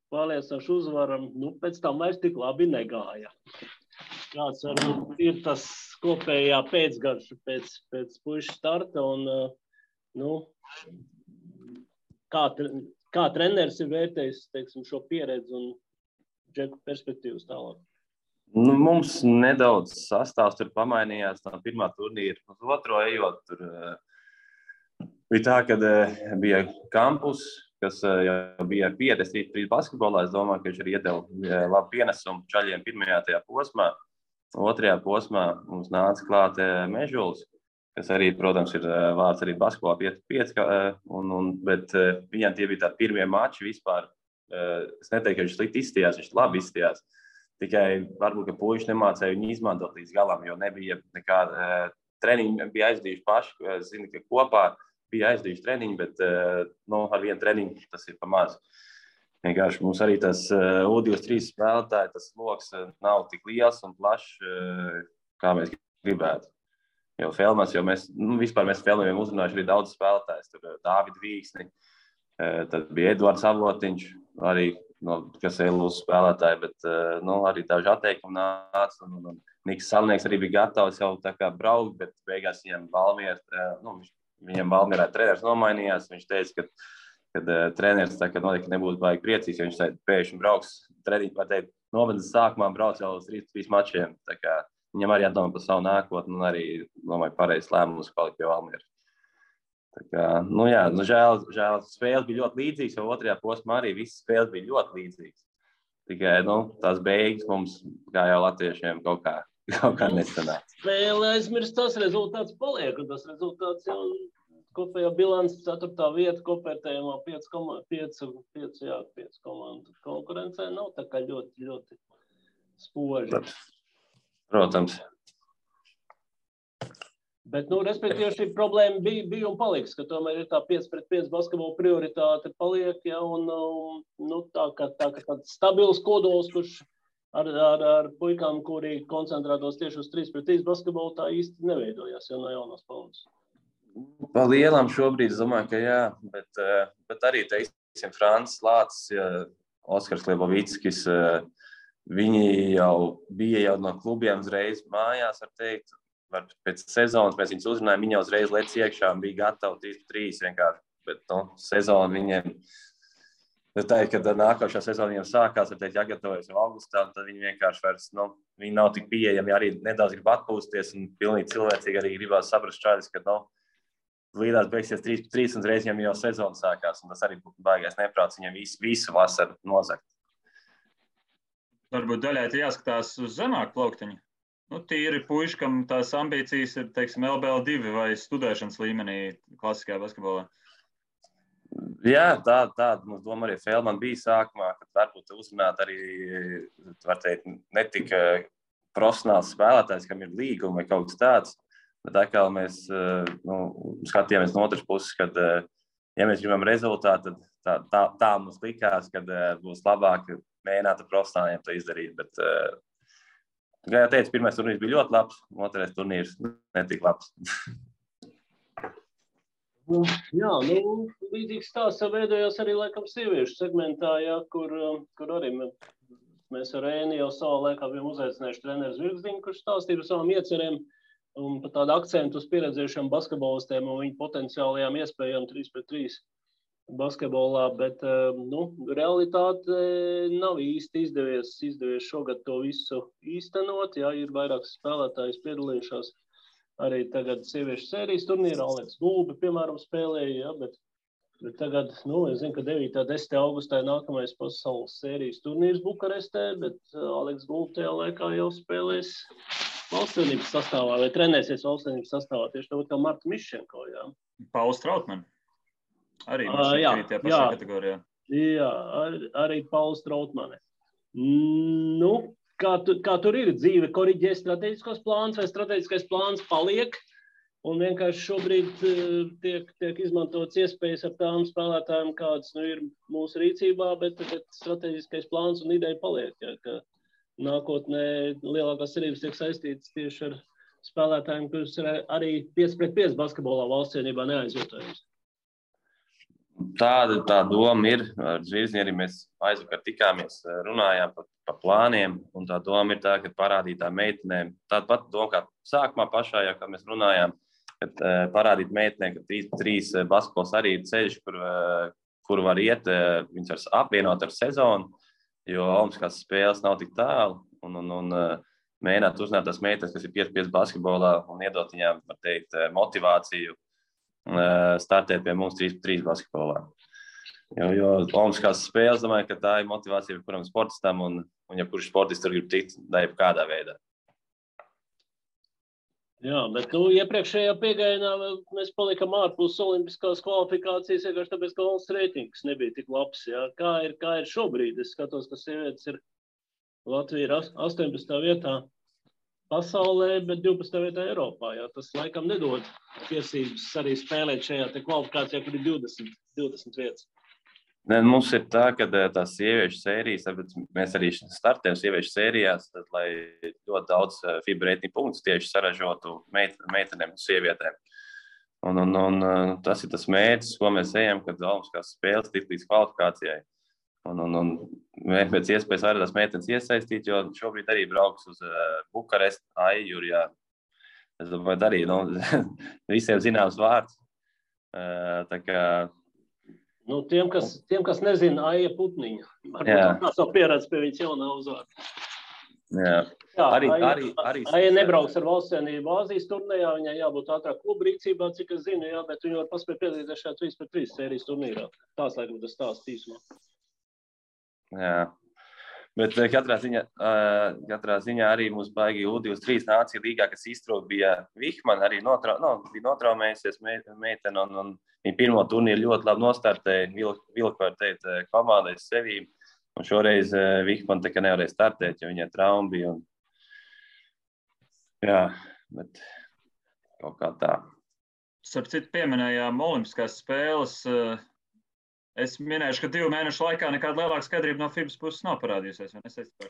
pārliecinoši uzvaram. Pēc tam vairs tik labi negāja. Kāds varbūt ir tas kopējā pēcgarša pēc puišu starta un kā treneris ir vērtējis, teiksim, šo pieredzi un džeku perspektīvas tālāk? Mums nedaudz sastāvs tur pamainījās no pirmā turnīra uz otro ejot. Tur bija tā, ka bija Kampus, kas jau bija pieredze 3 basketbolā. Es domāju, ka viņš arī iedeva labu pienesumu čaļiem pirmajā tajā posmā. Otrajā posmā mums nāca klāt Mežulis, kas arī, protams, ir vārds arī basketbolā 5-5, bet viņam tie bija tādi pirmie mači vispār. Es neteiktu, ka viņš slikti izstījās, viņš labi izstījās. Tikai varbūt, ka puiši nemācēja viņu izmantot līdz galam, jo nebija nekāda treniņa, bija aizdījuši paši. Es zinu, ka kopā bija aizdījuši treniņu, bet ar vienu treniņu tas ir pa maz. Vienkārši mums arī tas U23 spēlētāji, tas loks nav tik liels un plašs, kā mēs gribētu. Jo mēs Felmiem uzrunājuši arī daudz spēlētājs. Tur Dāvidu Vīksni, tad bija Edvards Avotiņš, arī kas ir Lūs spēlētāji, bet arī daži atteikumi nāca. Un Niks Salnieks arī bija gatavs jau tā kā braukt, bet beigās viņam Valmierā treneris nomainījās. Viņš teica, ka treneris tā kā noteikti nebūtu baigi priecīgs, jo viņš pēkšņi brauks treniņu, var teikt, novadas sākumā brauc jau uz 3 mačiem. Tā kā viņam arī jādomā par savu nākotni un arī, domāju, pareizs lēmums palikt pie Valmieras. Tā kā, žēl, spēles bija ļoti līdzīgas, jo otrajā posmā arī visas spēles bija ļoti līdzīgas. Tikai, tās beigas mums, kā jau latviešiem, kaut kā nesanāca. Spēle aizmirst, tas rezultāts paliek, un tas rezultāts jau kopējā bilants 4. vieta, kopērtējumā 5 komandu konkurencē nav tā kā ļoti, ļoti spoži. Protams. Bet, respektīvi, šī problēma bija un paliks, ka tomēr ir tā 5-5 basketbola prioritāte paliek, ja, un tā kā tāds stabils kodols, kurš ar puikām, kuri koncentrētos tieši uz 3-3 basketbolu, tā īsti neveidojās, ja no jaunās paudzes. Pa lielam šobrīd, es domāju, ka jā, bet arī, teiksim, Frāns Lācis, Oskars Lebovickis, viņi jau bija no klubiem uzreiz mājās, var teikt. Pēc sezonas mēs viņus uzrunājām, viņi jau uzreiz lec iekšā un bija gatavi 3-3 vienkārši. Bet sezona viņiem, kad nākošā sezona viņiem sākās, var teikt, jāgatavojas jau augustā, un tad viņi vienkārši vairs, viņi nav tik pieejami, arī nedaudz grib atpūsties un pilnīgi cilvēcīgi arī gribās saprast šādis, ka, līdās beigsies 3-3 un reiz viņiem jau sezona sākās, un tas arī būtu baigais neprāts viņiem visu vasaru nozagt. Varbūt daļai jāskatās uz zemāku plauktiņu. Nu, tīri puiši, kam tās ambīcijas ir, teiksim, LBL2 vai studēšanas līmenī klasiskajā basketbolā. Jā, tāda mums doma arī Feldman bija sākumā, kad varbūt uzrunāt arī, var teikt, ne tik profesionāls spēlētājs, kam ir līguma vai kaut kas tāds, bet atkal mēs skatījāmies no otras puses, kad, ja mēs gribam rezultātu, tad tā mums likās, kad būs labāk mēģināt ar profesionāliem to izdarīt, bet, kā jau teicu, pirmais turnīrs bija ļoti labs, otrais turnīrs netik labs. Jā, līdzīgs stāsts veidojās arī laikam sieviešu segmentā, jā, kur arī mēs ar Ēni jau savā laikā bijām uzaicinājuši treneris Virgziņu, kurš stāstīja par savām iecerēm un par tādu akcentu uz pieredzējušiem basketbolistiem un viņu potenciālajām iespējām 3-3 basketbolā, bet realitāte nav īsti izdevies šogad to visu īstenot, jā, ir vairākas spēlētājas piedalījušās. Arī tagad sieviešu sērijas turnīrā Aleks Gulbi, piemēram, spēlēja, ja, bet tagad, es zinu, ka 9. 10. augustā nākamais pasaules sērijas turnīrs Bukarestē, bet Aleks Gulbi tajā laikā jau spēlēs valstsvienības sastāvā vai trenēsies valstsvienības sastāvā, tieši tāpat kā Marta Miščenko, jā. Pauls Trautman. Arī Miščenko tajā pašā kategorijā. Jā, arī Pauls Trautmane. Kā tur ir dzīve, koriģē strateģiskos plāns vai strateģiskais plāns paliek un vienkārši šobrīd tiek izmantots iespējas ar tām spēlētājiem, kādas ir mūsu rīcībā, bet strateģiskais plāns un ideja paliek, ja, ka nākotnē lielākās cerības tiek saistītas tieši ar spēlētājiem, kurus ir arī 5-5 basketbolā valstsienībā neaizvietojams. Tā doma ir. Ar Zvirziņu arī mēs aizvakar tikāmies, runājām par plāniem, un tā doma ir tā, ka parādīt tā meitenēm, tāda pat doma kā sākumā pašā, jau, kad mēs runājām, kad parādīt meitenēm, ka 3 basketbols arī ir ceļš, kur var iet, viņas var apvienot ar sezonu, jo olimpiskās spēles nav tik tālu, un mēģināt uzzināt tās meitenes, kas ir 5-5 basketbolā, un iedot viņām, var teikt, motivāciju startēt pie mums 3-3 basketbolā. Jo olimpiskās spēles, domāju, ka tā ir motivācija kuram sportistam, un ja kurš sportists tur grib tikt, da jau kādā veidā. Jā, bet iepriekšējā piegājienā mēs palikam ārpus olimpiskās kvalifikācijas, vienkārši tāpēc, ka valsts reitings nebija tik labs. Jā. Kā ir šobrīd? Es skatos, ka sievietes ir Latvija ir 18. vietā pasaulē, bet 12. vietā Eiropā. Jā. Tas laikam nedod tiesības arī spēlēt šajā te kvalifikācijā, kur ir 20 vietas. Mums ir tā, ka tās sieviešu sērijas, mēs arī startējam sieviešu sērijās, tad, lai ļoti daudz FIBA reitingu punktus tieši saražotu meitenēm un sievietēm. Un tas ir tas mērķis, ko mēs ejam, kad olimpiskās spēles tik līdz kvalifikācijai. Un mēs pēc iespējas vairāk tās meitenes iesaistīt, jo šobrīd arī brauks uz Bukarestu, Aijurjā. Es domāju, arī visiem zināms vārds. Tā kā tiem, kas nezina, Aija Putniņa. Varbūt tā savu pieredzi pie viņas jaunā uzvārda. Jā, arī Aija nebrauks ar valstsienību Āzijas turnīrā, viņai jābūt ātrāk klubu rīcībā, cik es zinu, jā, bet viņa var paspēt piedalīties šajā 3-3 sērijas turnīrā. Tās laikam tas stāsts īsumā. Jā, bet katrā ziņā arī mums baigi U23 nācija līgā, kas iztrūk, bija Vihman, arī bija notraumējusies meitene, un viņa pirmo turnīru ļoti labi nostartēja, vilka var teikt, komandai sevī, un šoreiz Vihman tā kā nevarēja startēt, jo viņai trauma bija, jā, bet kaut kā tā. Starp citu pieminējām olimpiskās spēles. Es minēšu, ka 2 mēnešu laikā nekāda lielāka skaidrība no FIBAs puses nav parādījusies.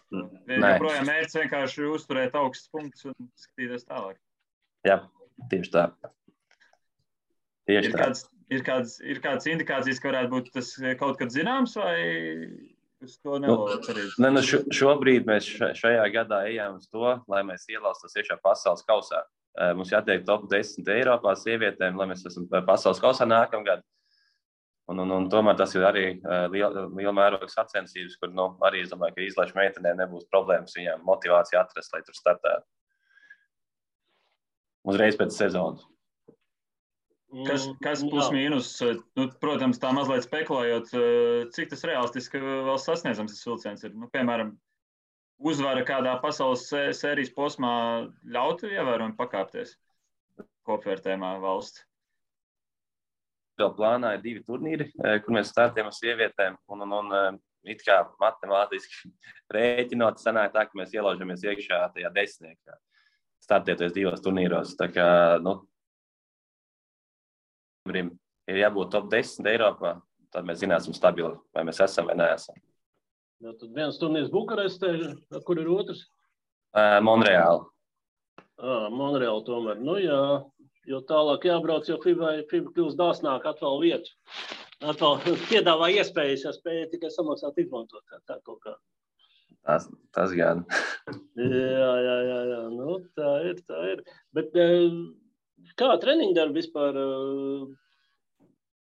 Joprojām mērķis vienkārši uzturēt augstus punktus un skatīties tālāk. Jā, tieši tā. Ir kādas indikācijas, ka varētu būt tas kaut kad zināms, vai uz to nevar cerīt? Šobrīd mēs šajā gadā ejam uz to, lai mēs ielaustos iekšā pasaules kausā. Mums jātiek top 10 Eiropā sievietēm, lai mēs esam pasaules kausā nākamgad. Un tomēr tas ir arī liela mēroga sacensības, kur arī es domāju, ka izlaišu meitenē nebūs problēmas viņām motivācija atrast, lai tur startētu. Uzreiz pēc sezonas. Kas plus mīnus, protams, tā mazliet spekulējot, cik tas realistiski vēl sasniedzams tas vilciens ir? Piemēram, uzvara kādā pasaules sērijas posmā ļautu ievērojami pakāpties kopvērtējumā valsts? Vēl plānā ir 2 turnīri, kur mēs startējam ar sievietēm, un it kā matemātiski rēķinot, sanāk tā, ka mēs ielaužamies iekšā tajā 10. startēties 2 turnīros. Tā kā, ir jābūt top 10 Eiropā, tad mēs zināsim stabili, vai mēs esam vai neesam. Jā, tad viens turnīrs Bukarestē, kur ir otrs? Monreāli. Monreāli tomēr. Nu jā, jo tālāk jābrauc, jo FIBA kļūst dāsnāk atvēl vietu. Atvēl piedāvā iespējas, ja spēja tikai samaksāt izmantot. Tā kaut kā. Tas gan. Jā. Nu, tā ir. Bet kā treniņdarbi vispār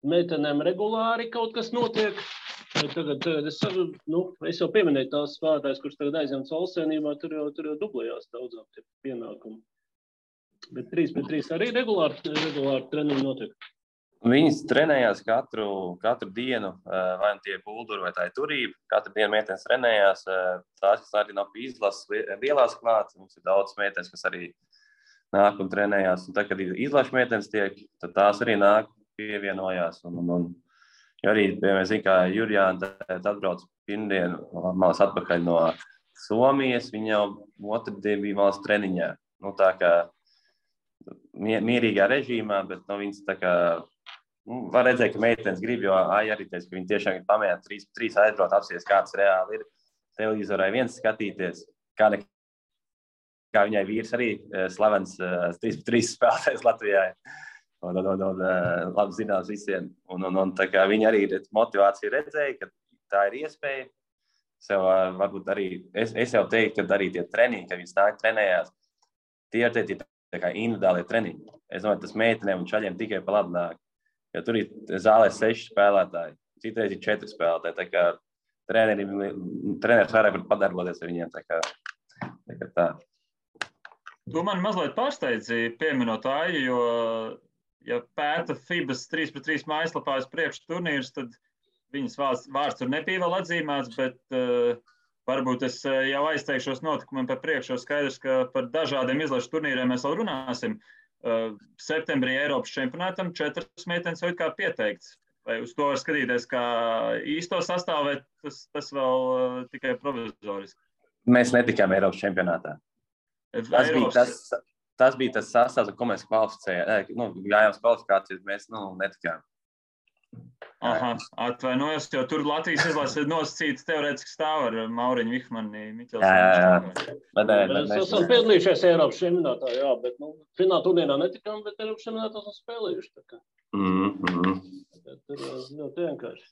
meitenēm regulāri kaut kas notiek? Tagad es jau pieminēju tās spēlētājs, kurš tagad aizņemts valstsvienībā, tur jau dublējās daudzām tie pienākumi. Bet 3-3 arī regulāri treniņi notiek. Viņas trenējās katru dienu, vai tie bulduri vai tā ir turība. Katru dienu meitenes trenējās, tās, kas arī nav pie izlases lielās klāt. Mums ir daudz meitenes, kas arī nāk un trenējās. Un tad, kad izlases meitenes tiek, tad tās arī nāk, pievienojās. Jo arī, mēs zinām, kā Jurjāna atbrauc pirmdienu, malas atpakaļ no Somijas, viņa jau otrdien bija malas treniņā. Tā kā mierīgā režīmā, bet viņas tā kā, var redzēt, ka meitenes grib, jo arī teica, ka viņi tiešām ir pamēģināt 3 aizbraukt, apsies, kāds reāli ir televizorai viens skatīties, kā viņai vīrs arī slavens 3-3 spēlētājs Latvijā. Labi zināms visiem. Un tā kā viņi arī motivāciju redzēja, ka tā ir iespēja. Varbūt arī, es jau teiktu, ka arī tie treniņi, kad viņas nāk trenējās, tie ir tā kā individuālie treniņi. Es domāju, tas meitenēm un čaļiem tikai pa labi nāk. Jo tur ir zālē 6 spēlētāji, citreiz ir 4 spēlētāji. Tā kā treneris vairāk var padarboties ar viņiem. Tā kā tā. Tu man mazliet pārsteidzi pieminot Aiju, jo ja pēta FIBAs 3-3 mājaslapā uz priekšu turnīrus, tad viņas vārds tur nebija vēl atzīmēts, bet varbūt es jau aizteikšos notikumiem par priekšu, jo skaidrs, ka par dažādiem izlašu turnīriem mēs vēl runāsim. Septembrī Eiropas čempionātam 4 meitenes jau kā pieteikts. Vai uz to var skatīties kā īsto sastāvu, vai tas vēl tikai provizoriski? Mēs netikām Eiropas čempionātā. Tas bija tas sastāvs, ko mēs kvalificējām. Gājām uz kvalifikācijas, mēs netikām. Aha, atvainojos, jo tur Latvijas izlase nosacīts teorētiski stāv ar Mauriņu Vihmani, Miķelsonu. Jā. Mēs esam piedalījušies Eiropas čempionātā, jā, bet fināla turnīrā netikām, bet Eiropas čempionātā esam spēlējuši. Tur ļoti vienkārši.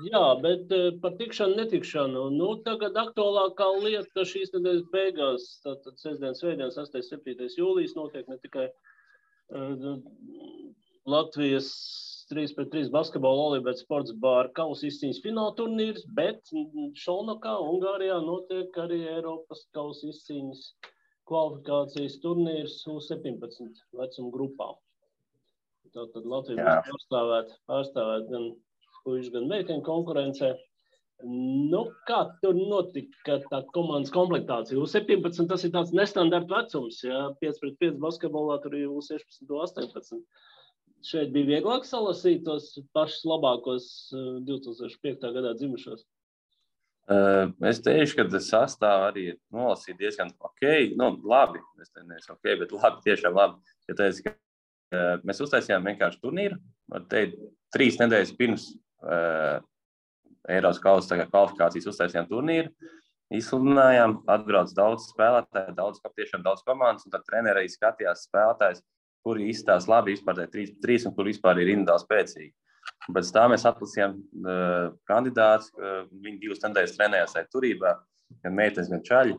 Jā, bet par tikšanu, netikšanu. Tagad aktuālākā lieta šīs nedēļas beigās, tātad sestdienas, svētdienas, 8.7. jūlijas notiek ne tikai Latvijas 3-3 basketbola Olibets sports bāra kausa izcīņas fināla turnīrs, bet Šolnokā, Ungārijā notiek arī Eiropas kausa izcīņas kvalifikācijas turnīrs U17 vecuma grupā. Tātad Latvija būs pārstāvēt gan puišu, gan meiteņu konkurencē. Kā tur notika tā komandas komplektācija? U17 tas ir tāds nestandarta vecums, ja 5-5 basketbolā tur ir U16, U18. Šeit bija vieglāk salasīt tos pašus labākos 2005. gadā dzimušos. Es teikšu, ka tas sastāv arī nolasīt diezgan labi. Es neesmu bet labi, tiešām labi. Ja teicu, ka mēs uztaisījām vienkārši turnīru, var teikt, 3 nedēļas pirms Eiropas kausa kvalifikācijas uztaisījām turnīru, izsludinājām, atbrauc daudz spēlētāju, tiešām daudz komandas, un tad treneri arī skatījās spēlētājs, kuri izstās labi vispār 3-3 un kur vispār ir individuāli spēcīgi. Pēc tā mēs atlasījām kandidātus, viņi 2 nedēļas trenējās turībā, gan meitenes, gan čaļi.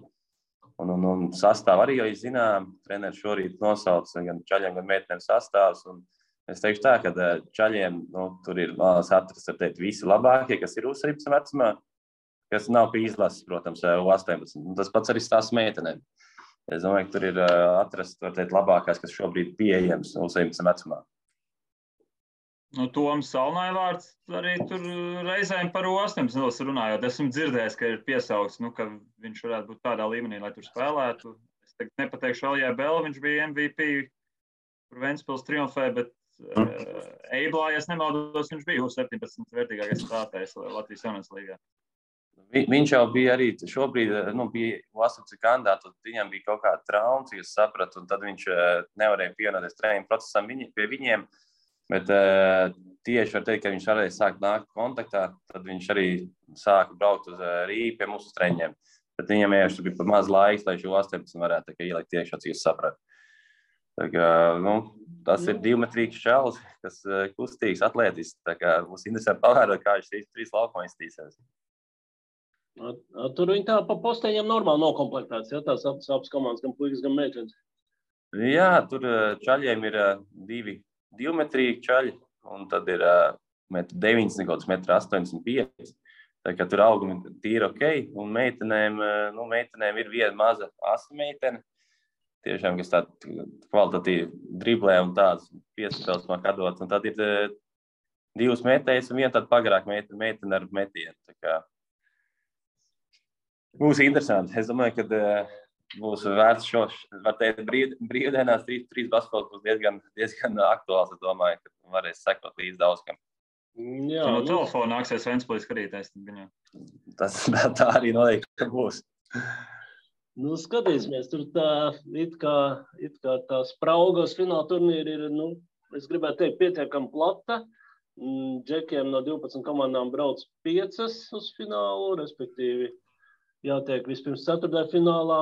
Un sastāv arī jau zinām, treneris šorīt nosauc gan čaļiem, gan meitenēm sastāvs. Es teikšu tā, ka čaļiem tur ir atrast visi labākie, kas ir U17 vecumā, kas nav pie izlases, protams, U18. Tas pats arī stāsts meitenēm. Es domāju, ka tur ir atrast labākās, kas šobrīd pieejams U17 vecumā. Toms Salnaivārds arī tur reizēm par 18 runājot. Esmu dzirdējis, ka ir piesaukts, ka viņš varētu būt tādā līmenī, lai tur spēlētu. Es tagad nepateikšu Alijai Bela, viņš bija MVP, kur Ventspils triumfē, bet Eiblā, ja es nemaldos, viņš bija U17 vērtīgākais spēlētājs Latvijas jaunās līgā. Viņš jau bija arī šobrīd, bija U18 kandidāts, viņam bija kaut kāda trauma, cik es sapratu, un tad viņš nevarēja pievienoties treniņu procesam pie viņiem, bet tieši var teikt, ka viņš varēja sākt nākt kontaktā, tad viņš arī sāka braukt uz Rīgu pie mūsu treniņiem. Bet viņam vienkārši bija par maz laiks, lai šo 18 varētu ielikt iekšā, cik es sapratu. Tā kā, tas ir divmetrīgs čalis, kas kustīgs, atletisks, tā kā mums interesanti pavērot, kā viņš 3 laukumā iztīsies. Tur viņi tā pa posteņiem normāli nokomplektēts, ja tās abas komandas, gan puikas, gan meitenes. Jā, tur čaļiem ir 2 divmetrīgi čaļi, un tad ir 1,90 m, 1,85 m. Tā kā tur augumi tīri ok, un meitenēm ir viena maza asa meitene, tiešām, kas tāda kvalitatīva driblē un tādas piespēles māk atdot. Un tad ir 2 metējas un viena tāda pagarāka meitene ar metienu. Tā kā būs interesanti. Es domāju, ka būs vērts var teikt, brīvdienās 3 basketbols būs diezgan aktuāls. Es domāju, ka varēs sekot līdz daudzkam. Jā, no telefona nāksies Ventspilī skatīties. Tā arī noteikti būs. Skatīsimies, tur tā it kā tā spraugos fināla turnīri ir, es gribētu teikt, pietiekami plata. Džekiem no 12 komandām brauc 5 uz finālu, respektīvi jātiek vispirms 4. finālā,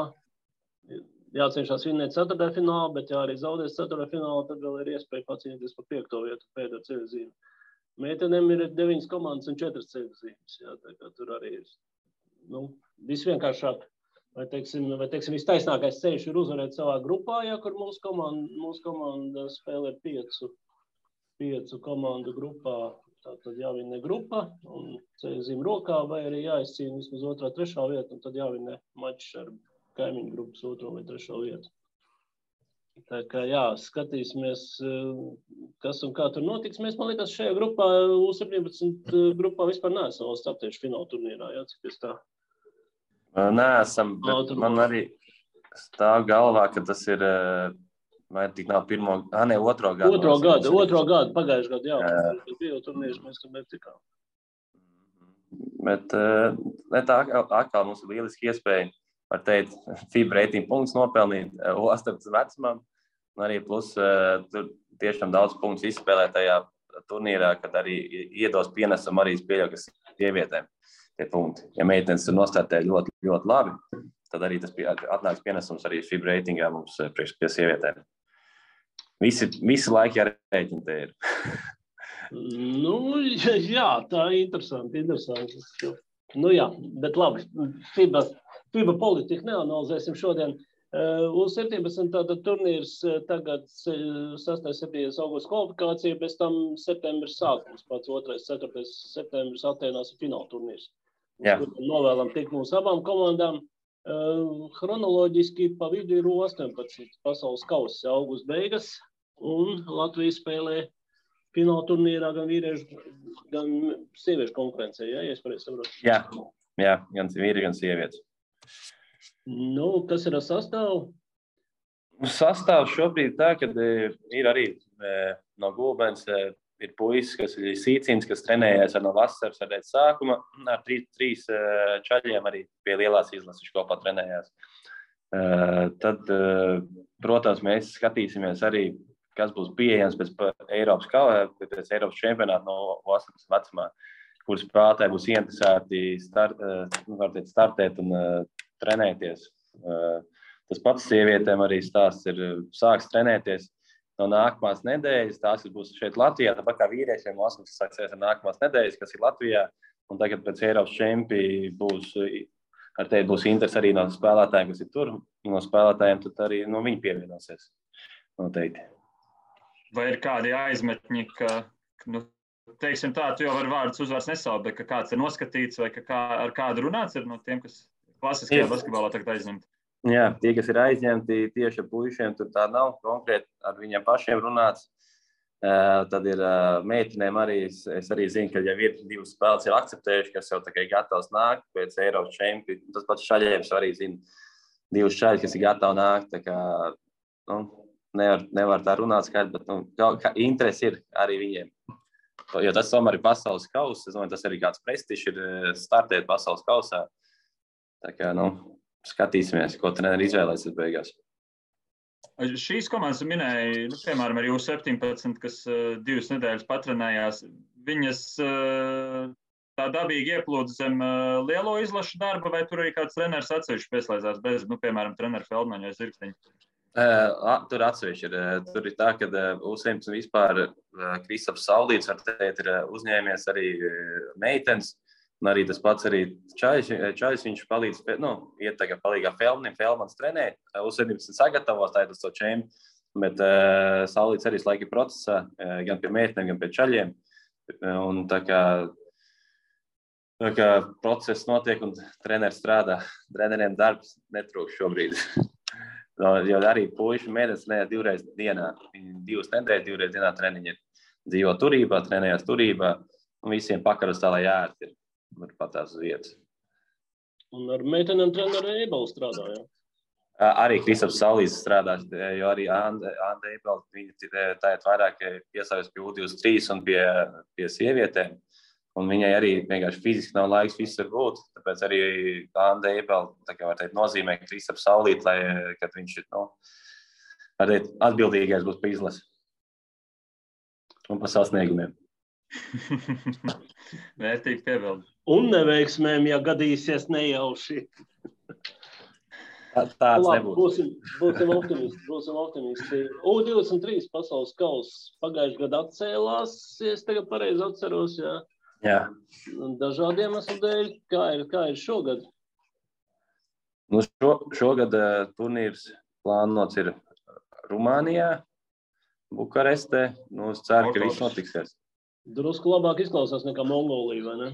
jācenšas vinnēt 4. finālā, bet ja arī zaudēs 4. finālā, tad vēl ir iespēja pacīnīties par 5. vietu pēdējā ceļzīme. Meitenēm ir 9 komandas un 4 ceļzīmes, jā, tā kā tur arī ir, visvienkāršāk. Vai teiksim, vistaisnākais ceļš ir uzvarēt savā grupā, ja kur mūsu komanda spēlē 5 komandu grupā, tad jāvinē grupa un ceļzīme rokā, vai arī jāizcīna vismaz 2., 3. vietu, un tad jāvinē mačs ar kaimiņu grupas 2. vai 3. vietu. Tā kā jā, skatīsimies, kas un kā tur notiks. Mēs, man liekas, šajā grupā, U17 grupā vispār neesam vēl startējuši fināla turnīrā, jā, cik es tā? Neesam, bet man arī stāv galvā, ka tas ir, vai tik nav 2. gadu. 2. gadu, pagājuši gadu, jā. Bija turnīrs, mēs tur netikām. Bet tā atkal mums ir lieliski iespēja, var teikt, FIBA reitingu punktus nopelnīt U18 vecumam, un arī plus tur tiešām daudz punktus izspēlēt tajā turnīrā, kad arī iedos pienesam arī pieļauj, kas sievietēm tie punkti. Ja meitenes tur nostartē ļoti, ļoti labi, tad arī tas atnāks pienesums arī FIBA reitingā mums pie sievietēm. Visi laiki jārēķina te ir. Jā, tā ir interesanti. Jā, bet labi, FIBA politiku neanalizēsim šodien. U17 tātad turnīrs tagad 6.7. augusta kvalifikācija, bez tam septembris sākums, pats 2. 4. septembris Atēnās ir fināla turnīrs. Novēlam tikt mūsu abām komandām. Chronoloģiski pa vidu ir U18 pasaules kauss augusta beigas, un Latvija spēlē fināla turnīrā gan vīriešu, gan sieviešu konkurencē, ja es pareizi saprotu? Jā, gan vīri, gan sievietes. Kas ir ar sastāvu? Sastāvs šobrīd tā, kad ir arī no Gulbens ir puisis, kas ir Sīcīns, kas trenējies no vasaras ar sākuma, ar 3 čaļiem arī pie lielās izlases kopā trenējās. Tad, protams, mēs skatīsimies arī, kas būs pieejams pēc Eiropas čempionāta no 18 vecumā, kuras spēlētāji būs interesēti startēt un trenēties. Tas pats sievietēm arī stāsts ir sāks trenēties no nākamās nedēļas. Tās būs šeit Latvijā, tāpat kā vīriešiem 18 sāksies ar nākamās nedēļas, kas ir Latvijā. Un tagad pēc Eiropas čempi būs interesi arī no spēlētājiem, kas ir tur. No spēlētājiem tad arī no viņi pievienosies. Noteikti. Vai ir kādi aizmetņi, ka teiksim tā, tu jau var vārdus uzvārds nesaukt, bet ka kāds ir noskatīts vai ar kādu runāts ir no tiem, kas klasiskajā basketbolā tagad aizņemti? Jā, tie, kas ir aizņemti tieši ar puišiem, tur tā nav konkrēti ar viņiem pašiem runāts. Tad ir meitenēm arī, es arī zinu, ka jau ir 2 spēles ir akceptējuši, kas jau tā kā ir gatavs nākt pēc Eiropas čempi. Tas pats šaļiem arī zinu 2 šaļi, kas ir gatavi nākt. Tā kā, nevar tā runāt skaidri, bet interesi ir arī viņiem. Jo tas tomēr ir pasaules kauss. Es domāju, tas arī kāds prestižs ir startēt pasaules kausā. Tā kā, skatīsimies, ko treneri izvēlēsies beigās. Šīs komandas minēja, piemēram, arī U17, kas 2 nedēļas patrenējās. Viņas tā dabīgi ieplūda zem lielo izlašu darba, vai tur arī kāds treneris atsevišķi pieslēdzās bez, piemēram, treneru Feldmaņa vai Zirksteņa? Tur atsevišķi ir. Tur ir tā, ka U17 vispār Kristaps Saulīts, var teikt, ir uzņēmies arī meitenes. Un arī tas pats arī Čaļs, viņš palīdz, iet tagad palīgā Feldmans trenē, U17 sagatavos, tā ir tas to čempi, bet Saulīts arī laika procesā, gan pie meitenēm, gan pie Čaļiem. Un tā kā process notiek un treneris strādā, treneriem darbs netrūkst šobrīd. Jo arī puiši mēnesis trenē 2 reizes dienā, 2 nedēļas, 2 reizes dienā treniņi ir. Dzīvo turībā, trenējās turībā, un visiem pakaros tā, lai ērti ir. Var patās uz vietas. Un ar meitenēm treneru Eibelu strādāja? Arī Kristaps Saulīts strādās, jo arī Anda Eibela, viņa tāiet vairāk piesājas pie U23 un pie sievietēm. Un viņai arī vienkārši fiziski nav laiks visur būt. Tāpēc arī Anda Eibela, tā kā var teikt, nozīmē Kristaps Saulīts, lai, kad viņš ir, var teikt, atbildīgais būs pa izlasi. Un pa sasniegumiem. Vērtīgi piebildi. Un neveiksmēm, ja gadīsies nejauši. Tāds nebūs. Būsim optimisti. U23 pasaules kauss pagājušajā gadā atcēlās, ja es tagad pareizi atceros, jā. Jā. Dažādiem iemeslu dēļ. Kā ir šogad? Šogad turnīrs plānots ir Rumānijā, Bukarestē. Es ceru, ka viss notiksies. Drusku labāk izklausās nekā Mongolija, vai ne?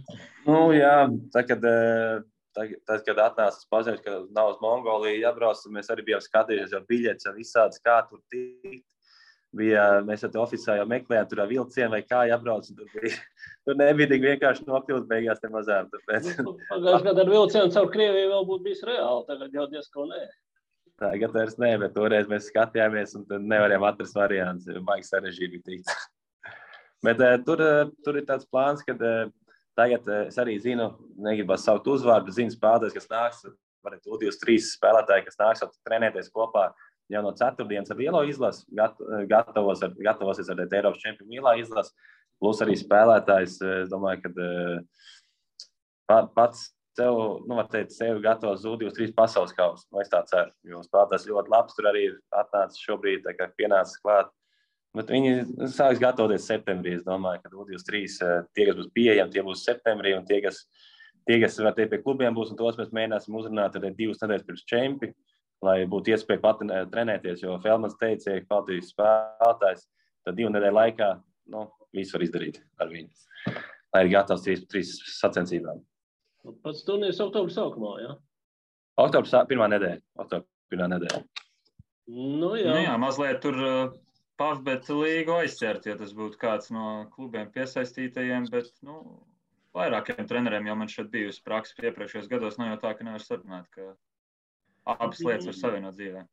Jā, tad, kad atnāca paziņojums, ka nav uz Mongoliju jābrauc, mēs arī bijām skatījušies jau biļetes, jau visādas, kā tur tikt. Mēs jau oficiāli jau meklējām, tur vilcienu vai kā jābrauc. Tur nebija tik vienkārši nokļūt beigās te mazām. Pagājušajā gadā ar vilcienu caur Krieviju vēl būtu bijis reāli, tagad jau diezko nē. Tagad vairs nē, bet toreiz mēs skatījāmies un tad nevarējām atrast variants, baigi sarežģīti bija tikt. Bet tur ir tāds plāns, ka tagad es arī zinu, negribas saukt uzvārdu, zinu spēlētājs, kas nāks, varētu U23 spēlētāji, kas nāks trenēties kopā jau no 4. ar lielo izlasi, gatavosies ar Eiropas čempionu lielā izlasi, plus arī spēlētājs, es domāju, ka pats sevi gatavos U23 pasaules kausu. Es tā ceru, jo spēlētājs ļoti labs, tur arī ir atnācis šobrīd, tā kā pienācis klāt. Bet viņi sāks gatavoties septembrī. Es domāju, ka U23 tie, kas būs pieejami, tie būs septembrī, un tie, kas var teikt pie klubiem būs, un tos mēs mēģināsim uzrunāt arī 2 nedēļas pirms čempi, lai būtu iespēja pat trenēties, jo Feldmans teica, ka kvalitīvs spēlētājs, tad 2 nedēļu laikā, visu var izdarīt ar viņu, lai ir gatavs 3 sacensībām. Pats turnīrs oktobra sākumā, jā? Oktobra pirmā nedēļa. Jā, mazliet tur Pavbet līgu aizķert, ja tas būtu kāds no klubiem piesaistītajiem, bet, vairākiem treneriem jau man šeit bijusi praksa iepriekšējos gados, nav jau tā, ka nevar sarunāt, ka abas lietas var savienot dzīvē.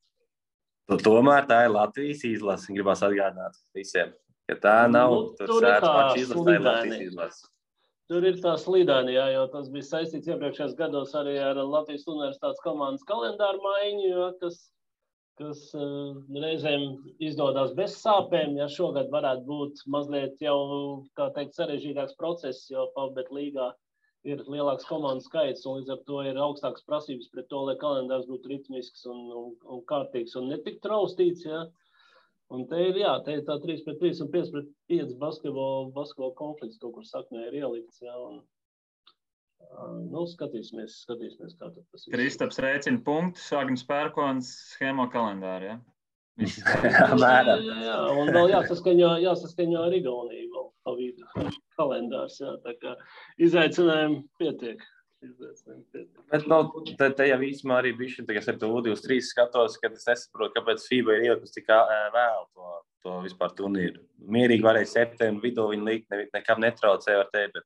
Tomēr tā ir Latvijas izlase, gribās atgādināt visiem, ka tā nav tur sēdz paši izlase, tā ir Latvijas izlase. Tur ir tā slīdaini, jā, jo tas bija saistīts iepriekšējos gados arī ar Latvijas universitātes komandas kalendāru maiņu, kas reizēm izdodas bez sāpēm, ja šogad varētu būt mazliet jau, kā teikt, sarežģītāks process, jo Pavbet līgā ir lielāks komandu skaits, un līdz ar to ir augstākas prasības pret to, lai kalendārs būtu ritmisks un kārtīgs un netik traustīts, ja. Un te ir tā 3-3 un 5-5 basketbola konflikts kaut kur saknē ir ielikts, ja, un skatīsimies, kā tas ir. Kristaps rēķina punktus, Agnis Pērkons schēmo kalendāru, ja? Jā, un vēl jāsaskaņo ar Igauniju vēl pa vidu kalendārs, jā, tā kā izaicinājumi pietiek. Bet te jau īsumā arī bišķi, tagad ar to U23 skatos, kad es nesaprotu, kāpēc FIBA ir ielikusi tik vēl to vispār turnīru. Mierīgi varēja septembra vidū viņu likt, nekam netraucēja, var teikt, bet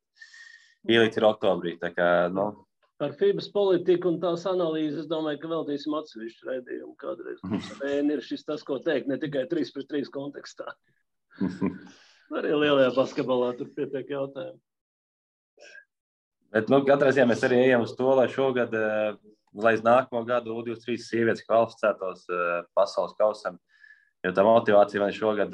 ielikt ir oktobrī. Tā kā, Par FIBAS politiku un tās analīzes, es domāju, ka veltīsim atsevišķu raidījumu kādreiz. Ir šis tas, ko teikt, ne tikai 3-3 kontekstā. Arī lielajā basketbolā tur pietiek jautājumu. Bet, katrā ziņā mēs arī ejam uz to, lai šogad, lai nākamo gadu U23 sievietes kvalificētos pasaules kausam, jo tā motivācija man šogad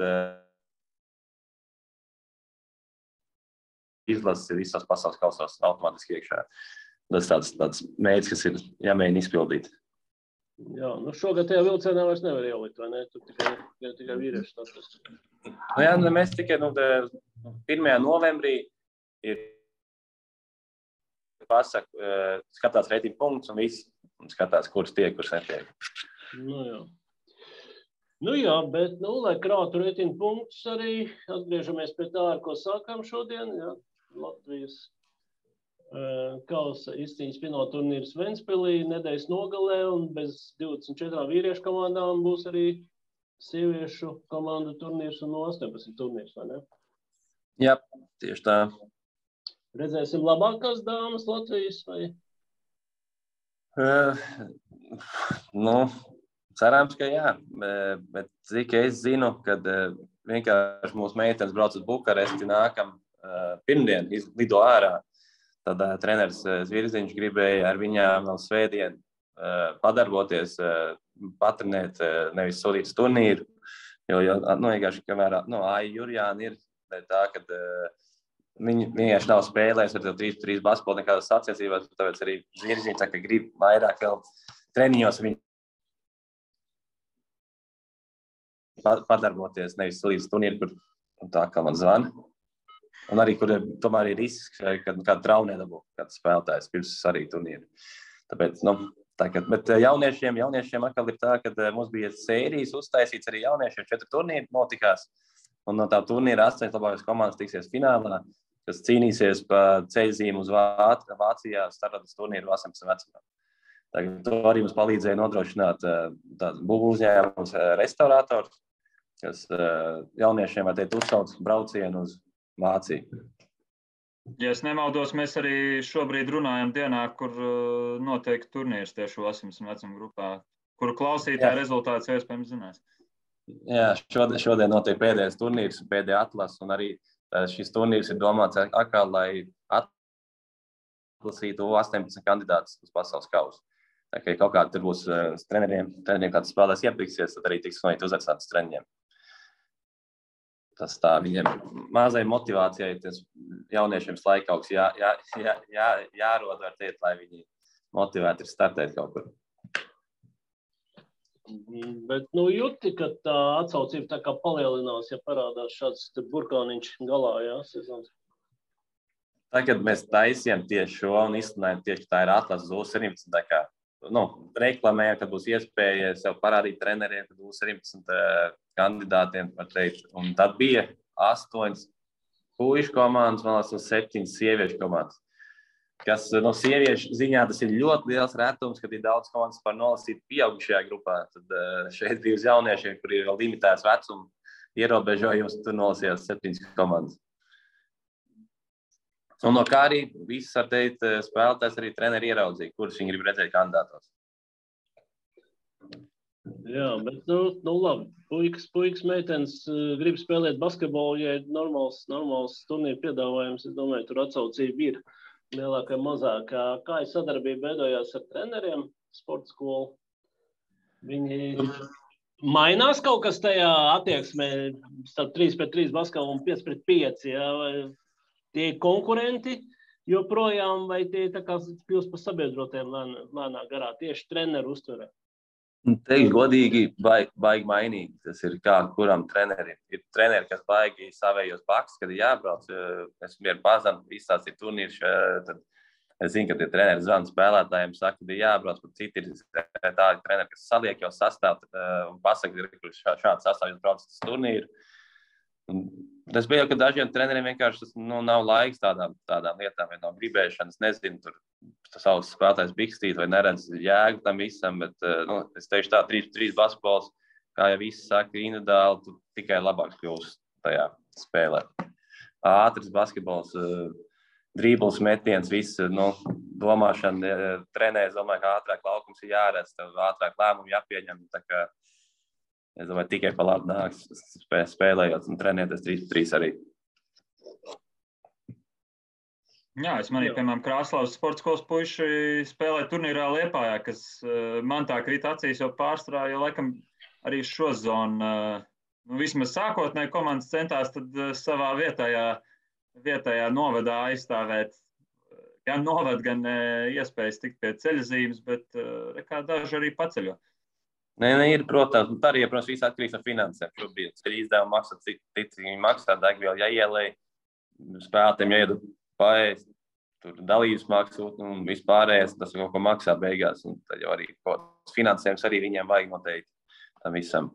izlases ir visās pasaules kausos automātiski iekšā. Tas tāds mērķis, kas ir jāmēģina izpildīt. Jā, šogad tajā vilcienā vairs nevar ielikt, vai ne? Tur tikai vīrieši tas. Jā, mēs tikai 1. novembrī ir skatās reitingu punktus un viss, un skatās, kurš tiek, kurš netiek. Jā, bet, lai krātu reitingu punktus arī, atgriežamies pie tā, ar ko sākām šodien, jā, Latvijas kausa izcīņas fināla turnīrs Ventspilī nedēļas nogalē, un bez 24 vīriešu komandām būs arī sieviešu komandu turnīrs un 18 turnīrs, vai ne? Jā, tieši tā. Redzēsim labākās dāmas Latvijas, vai? Cerams, ka jā, bet cik es zinu, kad vienkārši mūsu meitenes brauc uz Bukaresti nākam pirmdien, lido ārā. Tad treneris Zvirziņš gribēja ar viņām vēl svētdien padarboties, patrenēt, nevis sodīt turnīru, jo vienkārši, kamēr Aija Jurjāna ir tā, ka viņi vienkārši nav spēlējis ar 3-3 basketbolu nekādas sacensībās, tāpēc arī Zvirziņš saka, ka grib vairāk vēl treniņos viņu padarboties, nevis sodīt turnīru, kur tā kā man zvana. Un arī, kur tomēr ir risks, kad kāda trauma nedabū, kāds spēlētājs pirms arī turnīru. Tāpēc, bet jauniešiem atkal ir tā, ka mums bija sērijas uztaisīts arī jauniešiem 4 turnīri notikās. Un no tā turnīra 8 labākās komandas tiksies finālā, kas cīnīsies pa ceļzīmu uz Vācijā startas turnīru 18 vecumā. Tagad to arī mums palīdzēja nodrošināt būvu uzņēmums restaurators, kas jauniešiem var teikt uzsauc braucienu uz Vāciju. Ja es nemaldos, mēs arī šobrīd runājam dienā, kur notiek turnīrs tieši 18 vecuma grupā, kuru klausītāji rezultātus iespējams zinās. Jā, šodien notiek pēdējais turnīrs, pēdējā atlase, un arī šis turnīrs ir domāts atkal, lai atlasītu 18 kandidātus uz pasaules kausu. Tā kā kaut kādi tur būs treneriem kāds spēlēs iepriksies, tad arī tiks uzaicināts treneriem. Tas tā viņiem mazai motivācijai, tas jauniešiem laikauks jārod, var teikt, lai viņi motivēti ir startēt kaut kur. Bet, jūti, ka tā atsaucība tā kā palielinās, ja parādās šāds burkāniņš galā, jā, sezons? Tagad mēs taisījām tieši šo un izsludinājām tieši, ka tā ir atlases uz 17, tā kā, reklamējām, kad būs iespēja sev parādīt treneriem, kad būs 17 kandidātiem, var teikt. Un tad bija 8 puišu komandas, man liekas, un 7 sieviešu komandas. Kas no sieviešu ziņā tas ir ļoti liels retums, kad ir daudz komandas par nolasīt pieaugušajā grupā. Tad šeit bija uz jauniešiem, kur ir vēl limitēts vecuma ierobežojums, tur nolasījās 7 komandas. Un no kā arī viss, var teikt, spēlētājs arī treneri ieraudzīja, kurus viņi grib redzēt kandidātos. Jā, bet, labi, puikas meitenes grib spēlēt basketbolu, ja ir normāls turnīru piedāvājums, es domāju, tur atsaucība ir lielākā mazākā. Kā ir sadarbība veidojās ar treneriem sporta skolu? Viņi mainās kaut kas tajā attieksmē starp 3-3 basketbolu un 5-5, jā, vai tie ir konkurenti joprojām, vai tie tā kā kļūst par sabiedrotiem lēnā garā, tieši treneru uztverē? Teikt godīgi, baigi mainīgi. Tas ir kā kuram trenerim. Ir treneri, kas baigi savējos baks, kad ir jābrauc. Es mieru pazanu, izstāstīt turnīrs, tad es zinu, ka tie treneri zvana spēlētājiem, saka, ka ir jābrauc, bet citi ir tādi treneri, kas saliek jau sastāv un pasaka, ka šāds sastāv jūs brauc uz turnīru. Tas bija jau, ka dažiem treneriem vienkārši nav laiks tādām lietām, vai nav gribēšanas, nezinu, tur savus spēlētājs bikstīt vai neredz jēgu tam visam, bet es teikšu tā, 3-3 basketbols, kā jau visi saka, individuāli tu tikai labāk kļūsi tajā spēlē. Ātrs basketbols, drībls, metiens, viss, domāšana, trenēs, domāju, ka ātrāk laukums ir jāredz, tev ātrāk lēmumi jāpieņem, tā kā es domāju, tikai pa labi nāks spēlējot un trenēties 3-3 arī. Jā, es manīju, piemēram, Krāslavas sporta skolas puiši spēlē turnīrā Liepājā, kas man tā krīt acīs jau pārstrā, jo laikam arī šo zonu, vismaz sākotnēji komandas centās tad savā vietējā novadā aizstāvēt gan novad, gan iespējas tikt pie ceļazīmes, bet kā daži arī paceļo. Nē, ir, protams, tā arī, protams, viss atkarīgs no finansēm. Šobrīd ceļu izdevumu maksā, cik viņi maksā, degvielu jāielēj, spēlētiem jāiedod paēst, tur dalības maksu un vispārējais, tas kaut ko maksā beigās. Un tad jau arī finansējums arī viņiem vajag noteikti tam visam.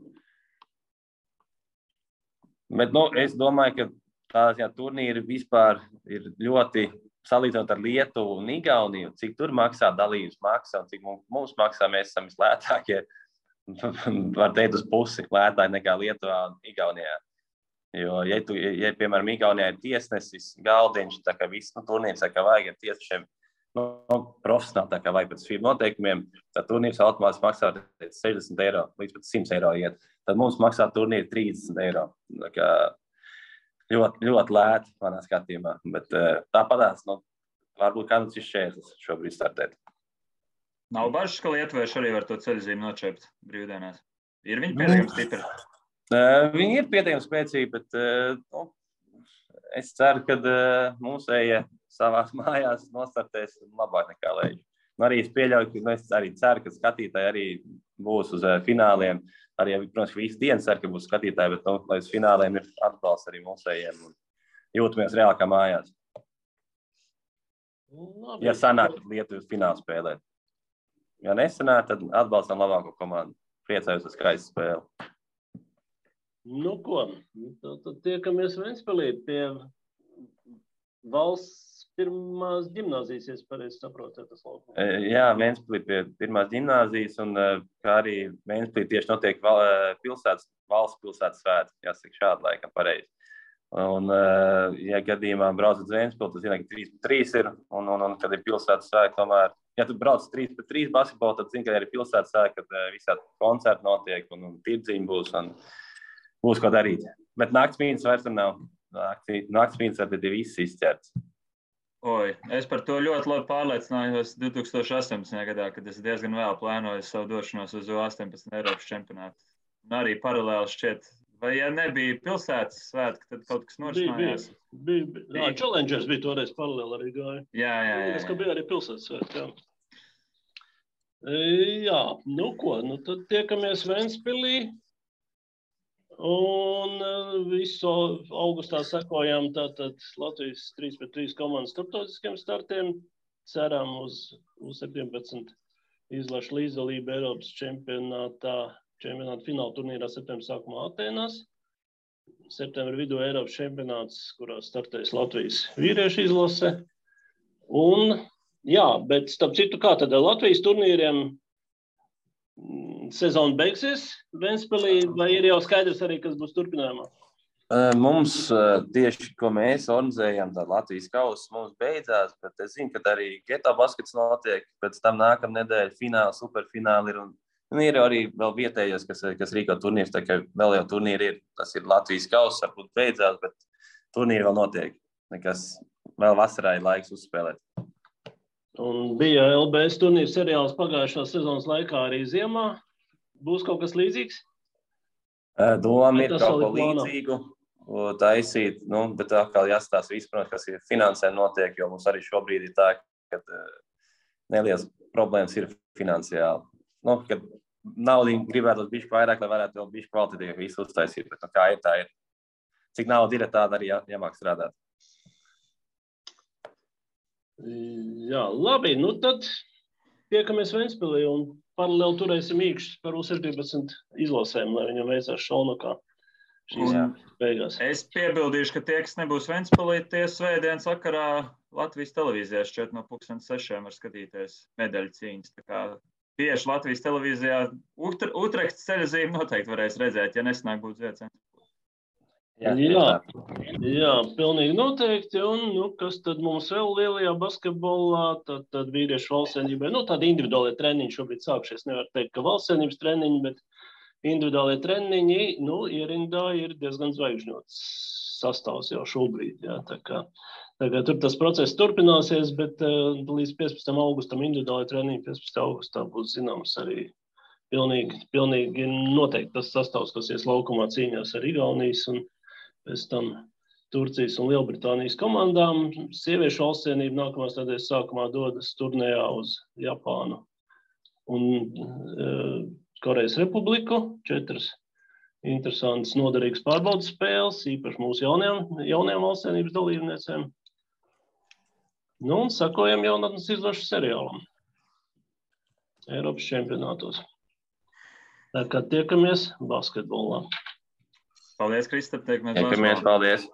Bet, es domāju, ka tās turnīri vispār ir ļoti salīdzinot ar Lietuvu un Igauniju, cik tur maksā dalības maksa un cik mums maksā, mēs esam vislētākie, var teikt uz pusi lētāki nekā Lietuvā un Igaunijā. Jo, ja piemēram, Igaunijā ir tiesnesis, galdiņš, tā kā viss turnīrs, tā kā vajag ar tiesnešiem profesionāli, tā kā vajag pēc FIBA noteikumiem, tad turnīrs automātiski maksā 60 eiro, līdz pat 100 eiro iet. Tad mums maksā turnīri 30 eiro. Tā kā ļoti, ļoti lēti manā skatījumā, bet tāpatās, varbūt kādams ir šķērslis šobrīd startēt. Nav bažas, ka lietuvieši arī var to ceļzīmi nočept brīvdienās? Ir viņi pietiekami stipri? Viņi ir pietiekami spēcīgi, bet es ceru, ka mūsējie savās mājās nostartēs labāk nekā Leiģi. Arī es pieļauju, ka es arī ceru, ka skatītāji arī būs uz fināliem. Arī, protams, visi dienas ceru, ka būs skatītāji, bet lai uz fināliem ir atbalsts arī mūsējiem un jūtamies reāli kā mājās. Ja sanāk Lietuvas finālu spēlēt. Ja nesanāk, tad atbalstam labāko komandu. Priecājos uz skaistu spēli. Nu ko, tad tiekamies Ventspilī pie valsts pirmās ģimnāzijas, ja pareizi saprotu, tas laukums. Jā, Ventspilī pie pirmās ģimnāzijas un kā arī Ventspilī tieši notiek valsts pilsētas svētki, jāsaka šādi laikam pareizi. Un, ja gadījumā brauc uz Ventspili, tad zina, ka 3-3 ir un kad ir pilsētas svētki tomēr. Ja tu brauc 3-3 basketbolu, tad zini, ka ir pilsētas svētki, kad visādi koncerti notiek un tirdziņi būs un būs ko darīt. Bet naktsmīnas vairs nav. Naktsmīnas tad ir viss izķerts. Es par to ļoti labi pārliecinājos 2018. gadā, kad es diezgan vēl plānoju savu došanos uz 18 Eiropas čempionātu. Un arī paralēli šķiet, vai ja nebija pilsētas svētki, tad kaut kas norisinājās? Bija. Challengers bija toreiz paralēli arī gāja. Jā. Es, ka bija arī pilsētas svētki, jā. Jā, nu ko, tad tiekamies Ventspilī. Un visu augustā sekojām tātad Latvijas 3-3 komandas starptautiskiem startiem. Ceram uz 17 izlašu līdzdalību Eiropas čempionāta fināla turnīrā septembra sākumā Atēnās. Septembra vidū Eiropas čempionāts, kurā startēs Latvijas vīriešu izlase. Un, jā, bet starp citu, kā tad Latvijas turnīriem sezona beigsies Ventspilī, vai ir jau skaidrs arī, kas būs turpinājumā? Mums tieši, ko mēs organizējam, tā Latvijas kausa mums beidzās, bet es zinu, ka arī geto baskets notiek, pēc tam nākamā nedēļa fināli, superfināli ir, un ir arī vēl vietējos, kas rīko turnīrs, tā kā vēl jau turnīri ir, tas ir Latvijas kausa, varbūt beidzās, bet turnīri vēl notiek, nekas vēl vasarā ir laiks uzspēlēt. Un bija LBS turnīra seriāls pagājušās sezonas laikā arī ziemā. Būs kaut kas līdzīgs? Doma ir kaut ko līdzīgu taisīt, bet atkal jāstāsta viss, protams, kas ir finansē notiek, jo mums arī šobrīd ir tā, ka nelielas problēmas ir finansiāli. Kad naudu gribētu bišķi vairāk, lai varētu vēl bišķi kvalitatīvi visu uztaisīt, bet kā ir, tā ir. Cik nauda ir, tāda arī jāmāk strādāt. Jā, labi, tad tiekamies Ventspilī un paralēli turēsim īkšķus par U17 izlasēm, lai viņam veicās šaunakā šīs beigās. Es piebildīšu, ka tie, kas nebūs Ventspilī, tie svētdienas vakarā Latvijas televīzijā šķiet no 6:00 var skatīties medaļu cīņas. Tā kā tieši Latvijas televīzijā Utrehtas ceļazīme noteikti varēs redzēt, ja nesanāk būt Zviedrijas. Jā, pilnīgi noteikti. Un kas tad mums vēl lielajā basketbolā? Tad vīriešu valstsvienībai, tādi individuālie treniņi šobrīd sākušies. Nevar teikt, ka valstsvienības treniņi, bet individuālie treniņi, ierindā ir diezgan zvaigžņots sastāvs jau šobrīd. Jā, tā kā tur tas process turpināsies, bet līdz 15. augustam individuāli treniņi, 15. augustā būs zināms arī pilnīgi noteikti tas sastāvs, kas ies laukumā cīņās ar Igaunijas un pēc tam Turcijas un Lielbritānijas komandām. Sieviešu valstsvienība nākamās nedēļas sākumā dodas turnējā uz Japānu un Korejas Republiku. 4 interesantas, noderīgas pārbaudas spēles, īpaši mūsu jaunajām valstsvienības dalībniecēm. Un sakojam jaunatnes izlašu seriālam Eiropas čempionātos. Tā kā tiekamies basketbolā. Paldies, Kristap. Tiekamies, paldies.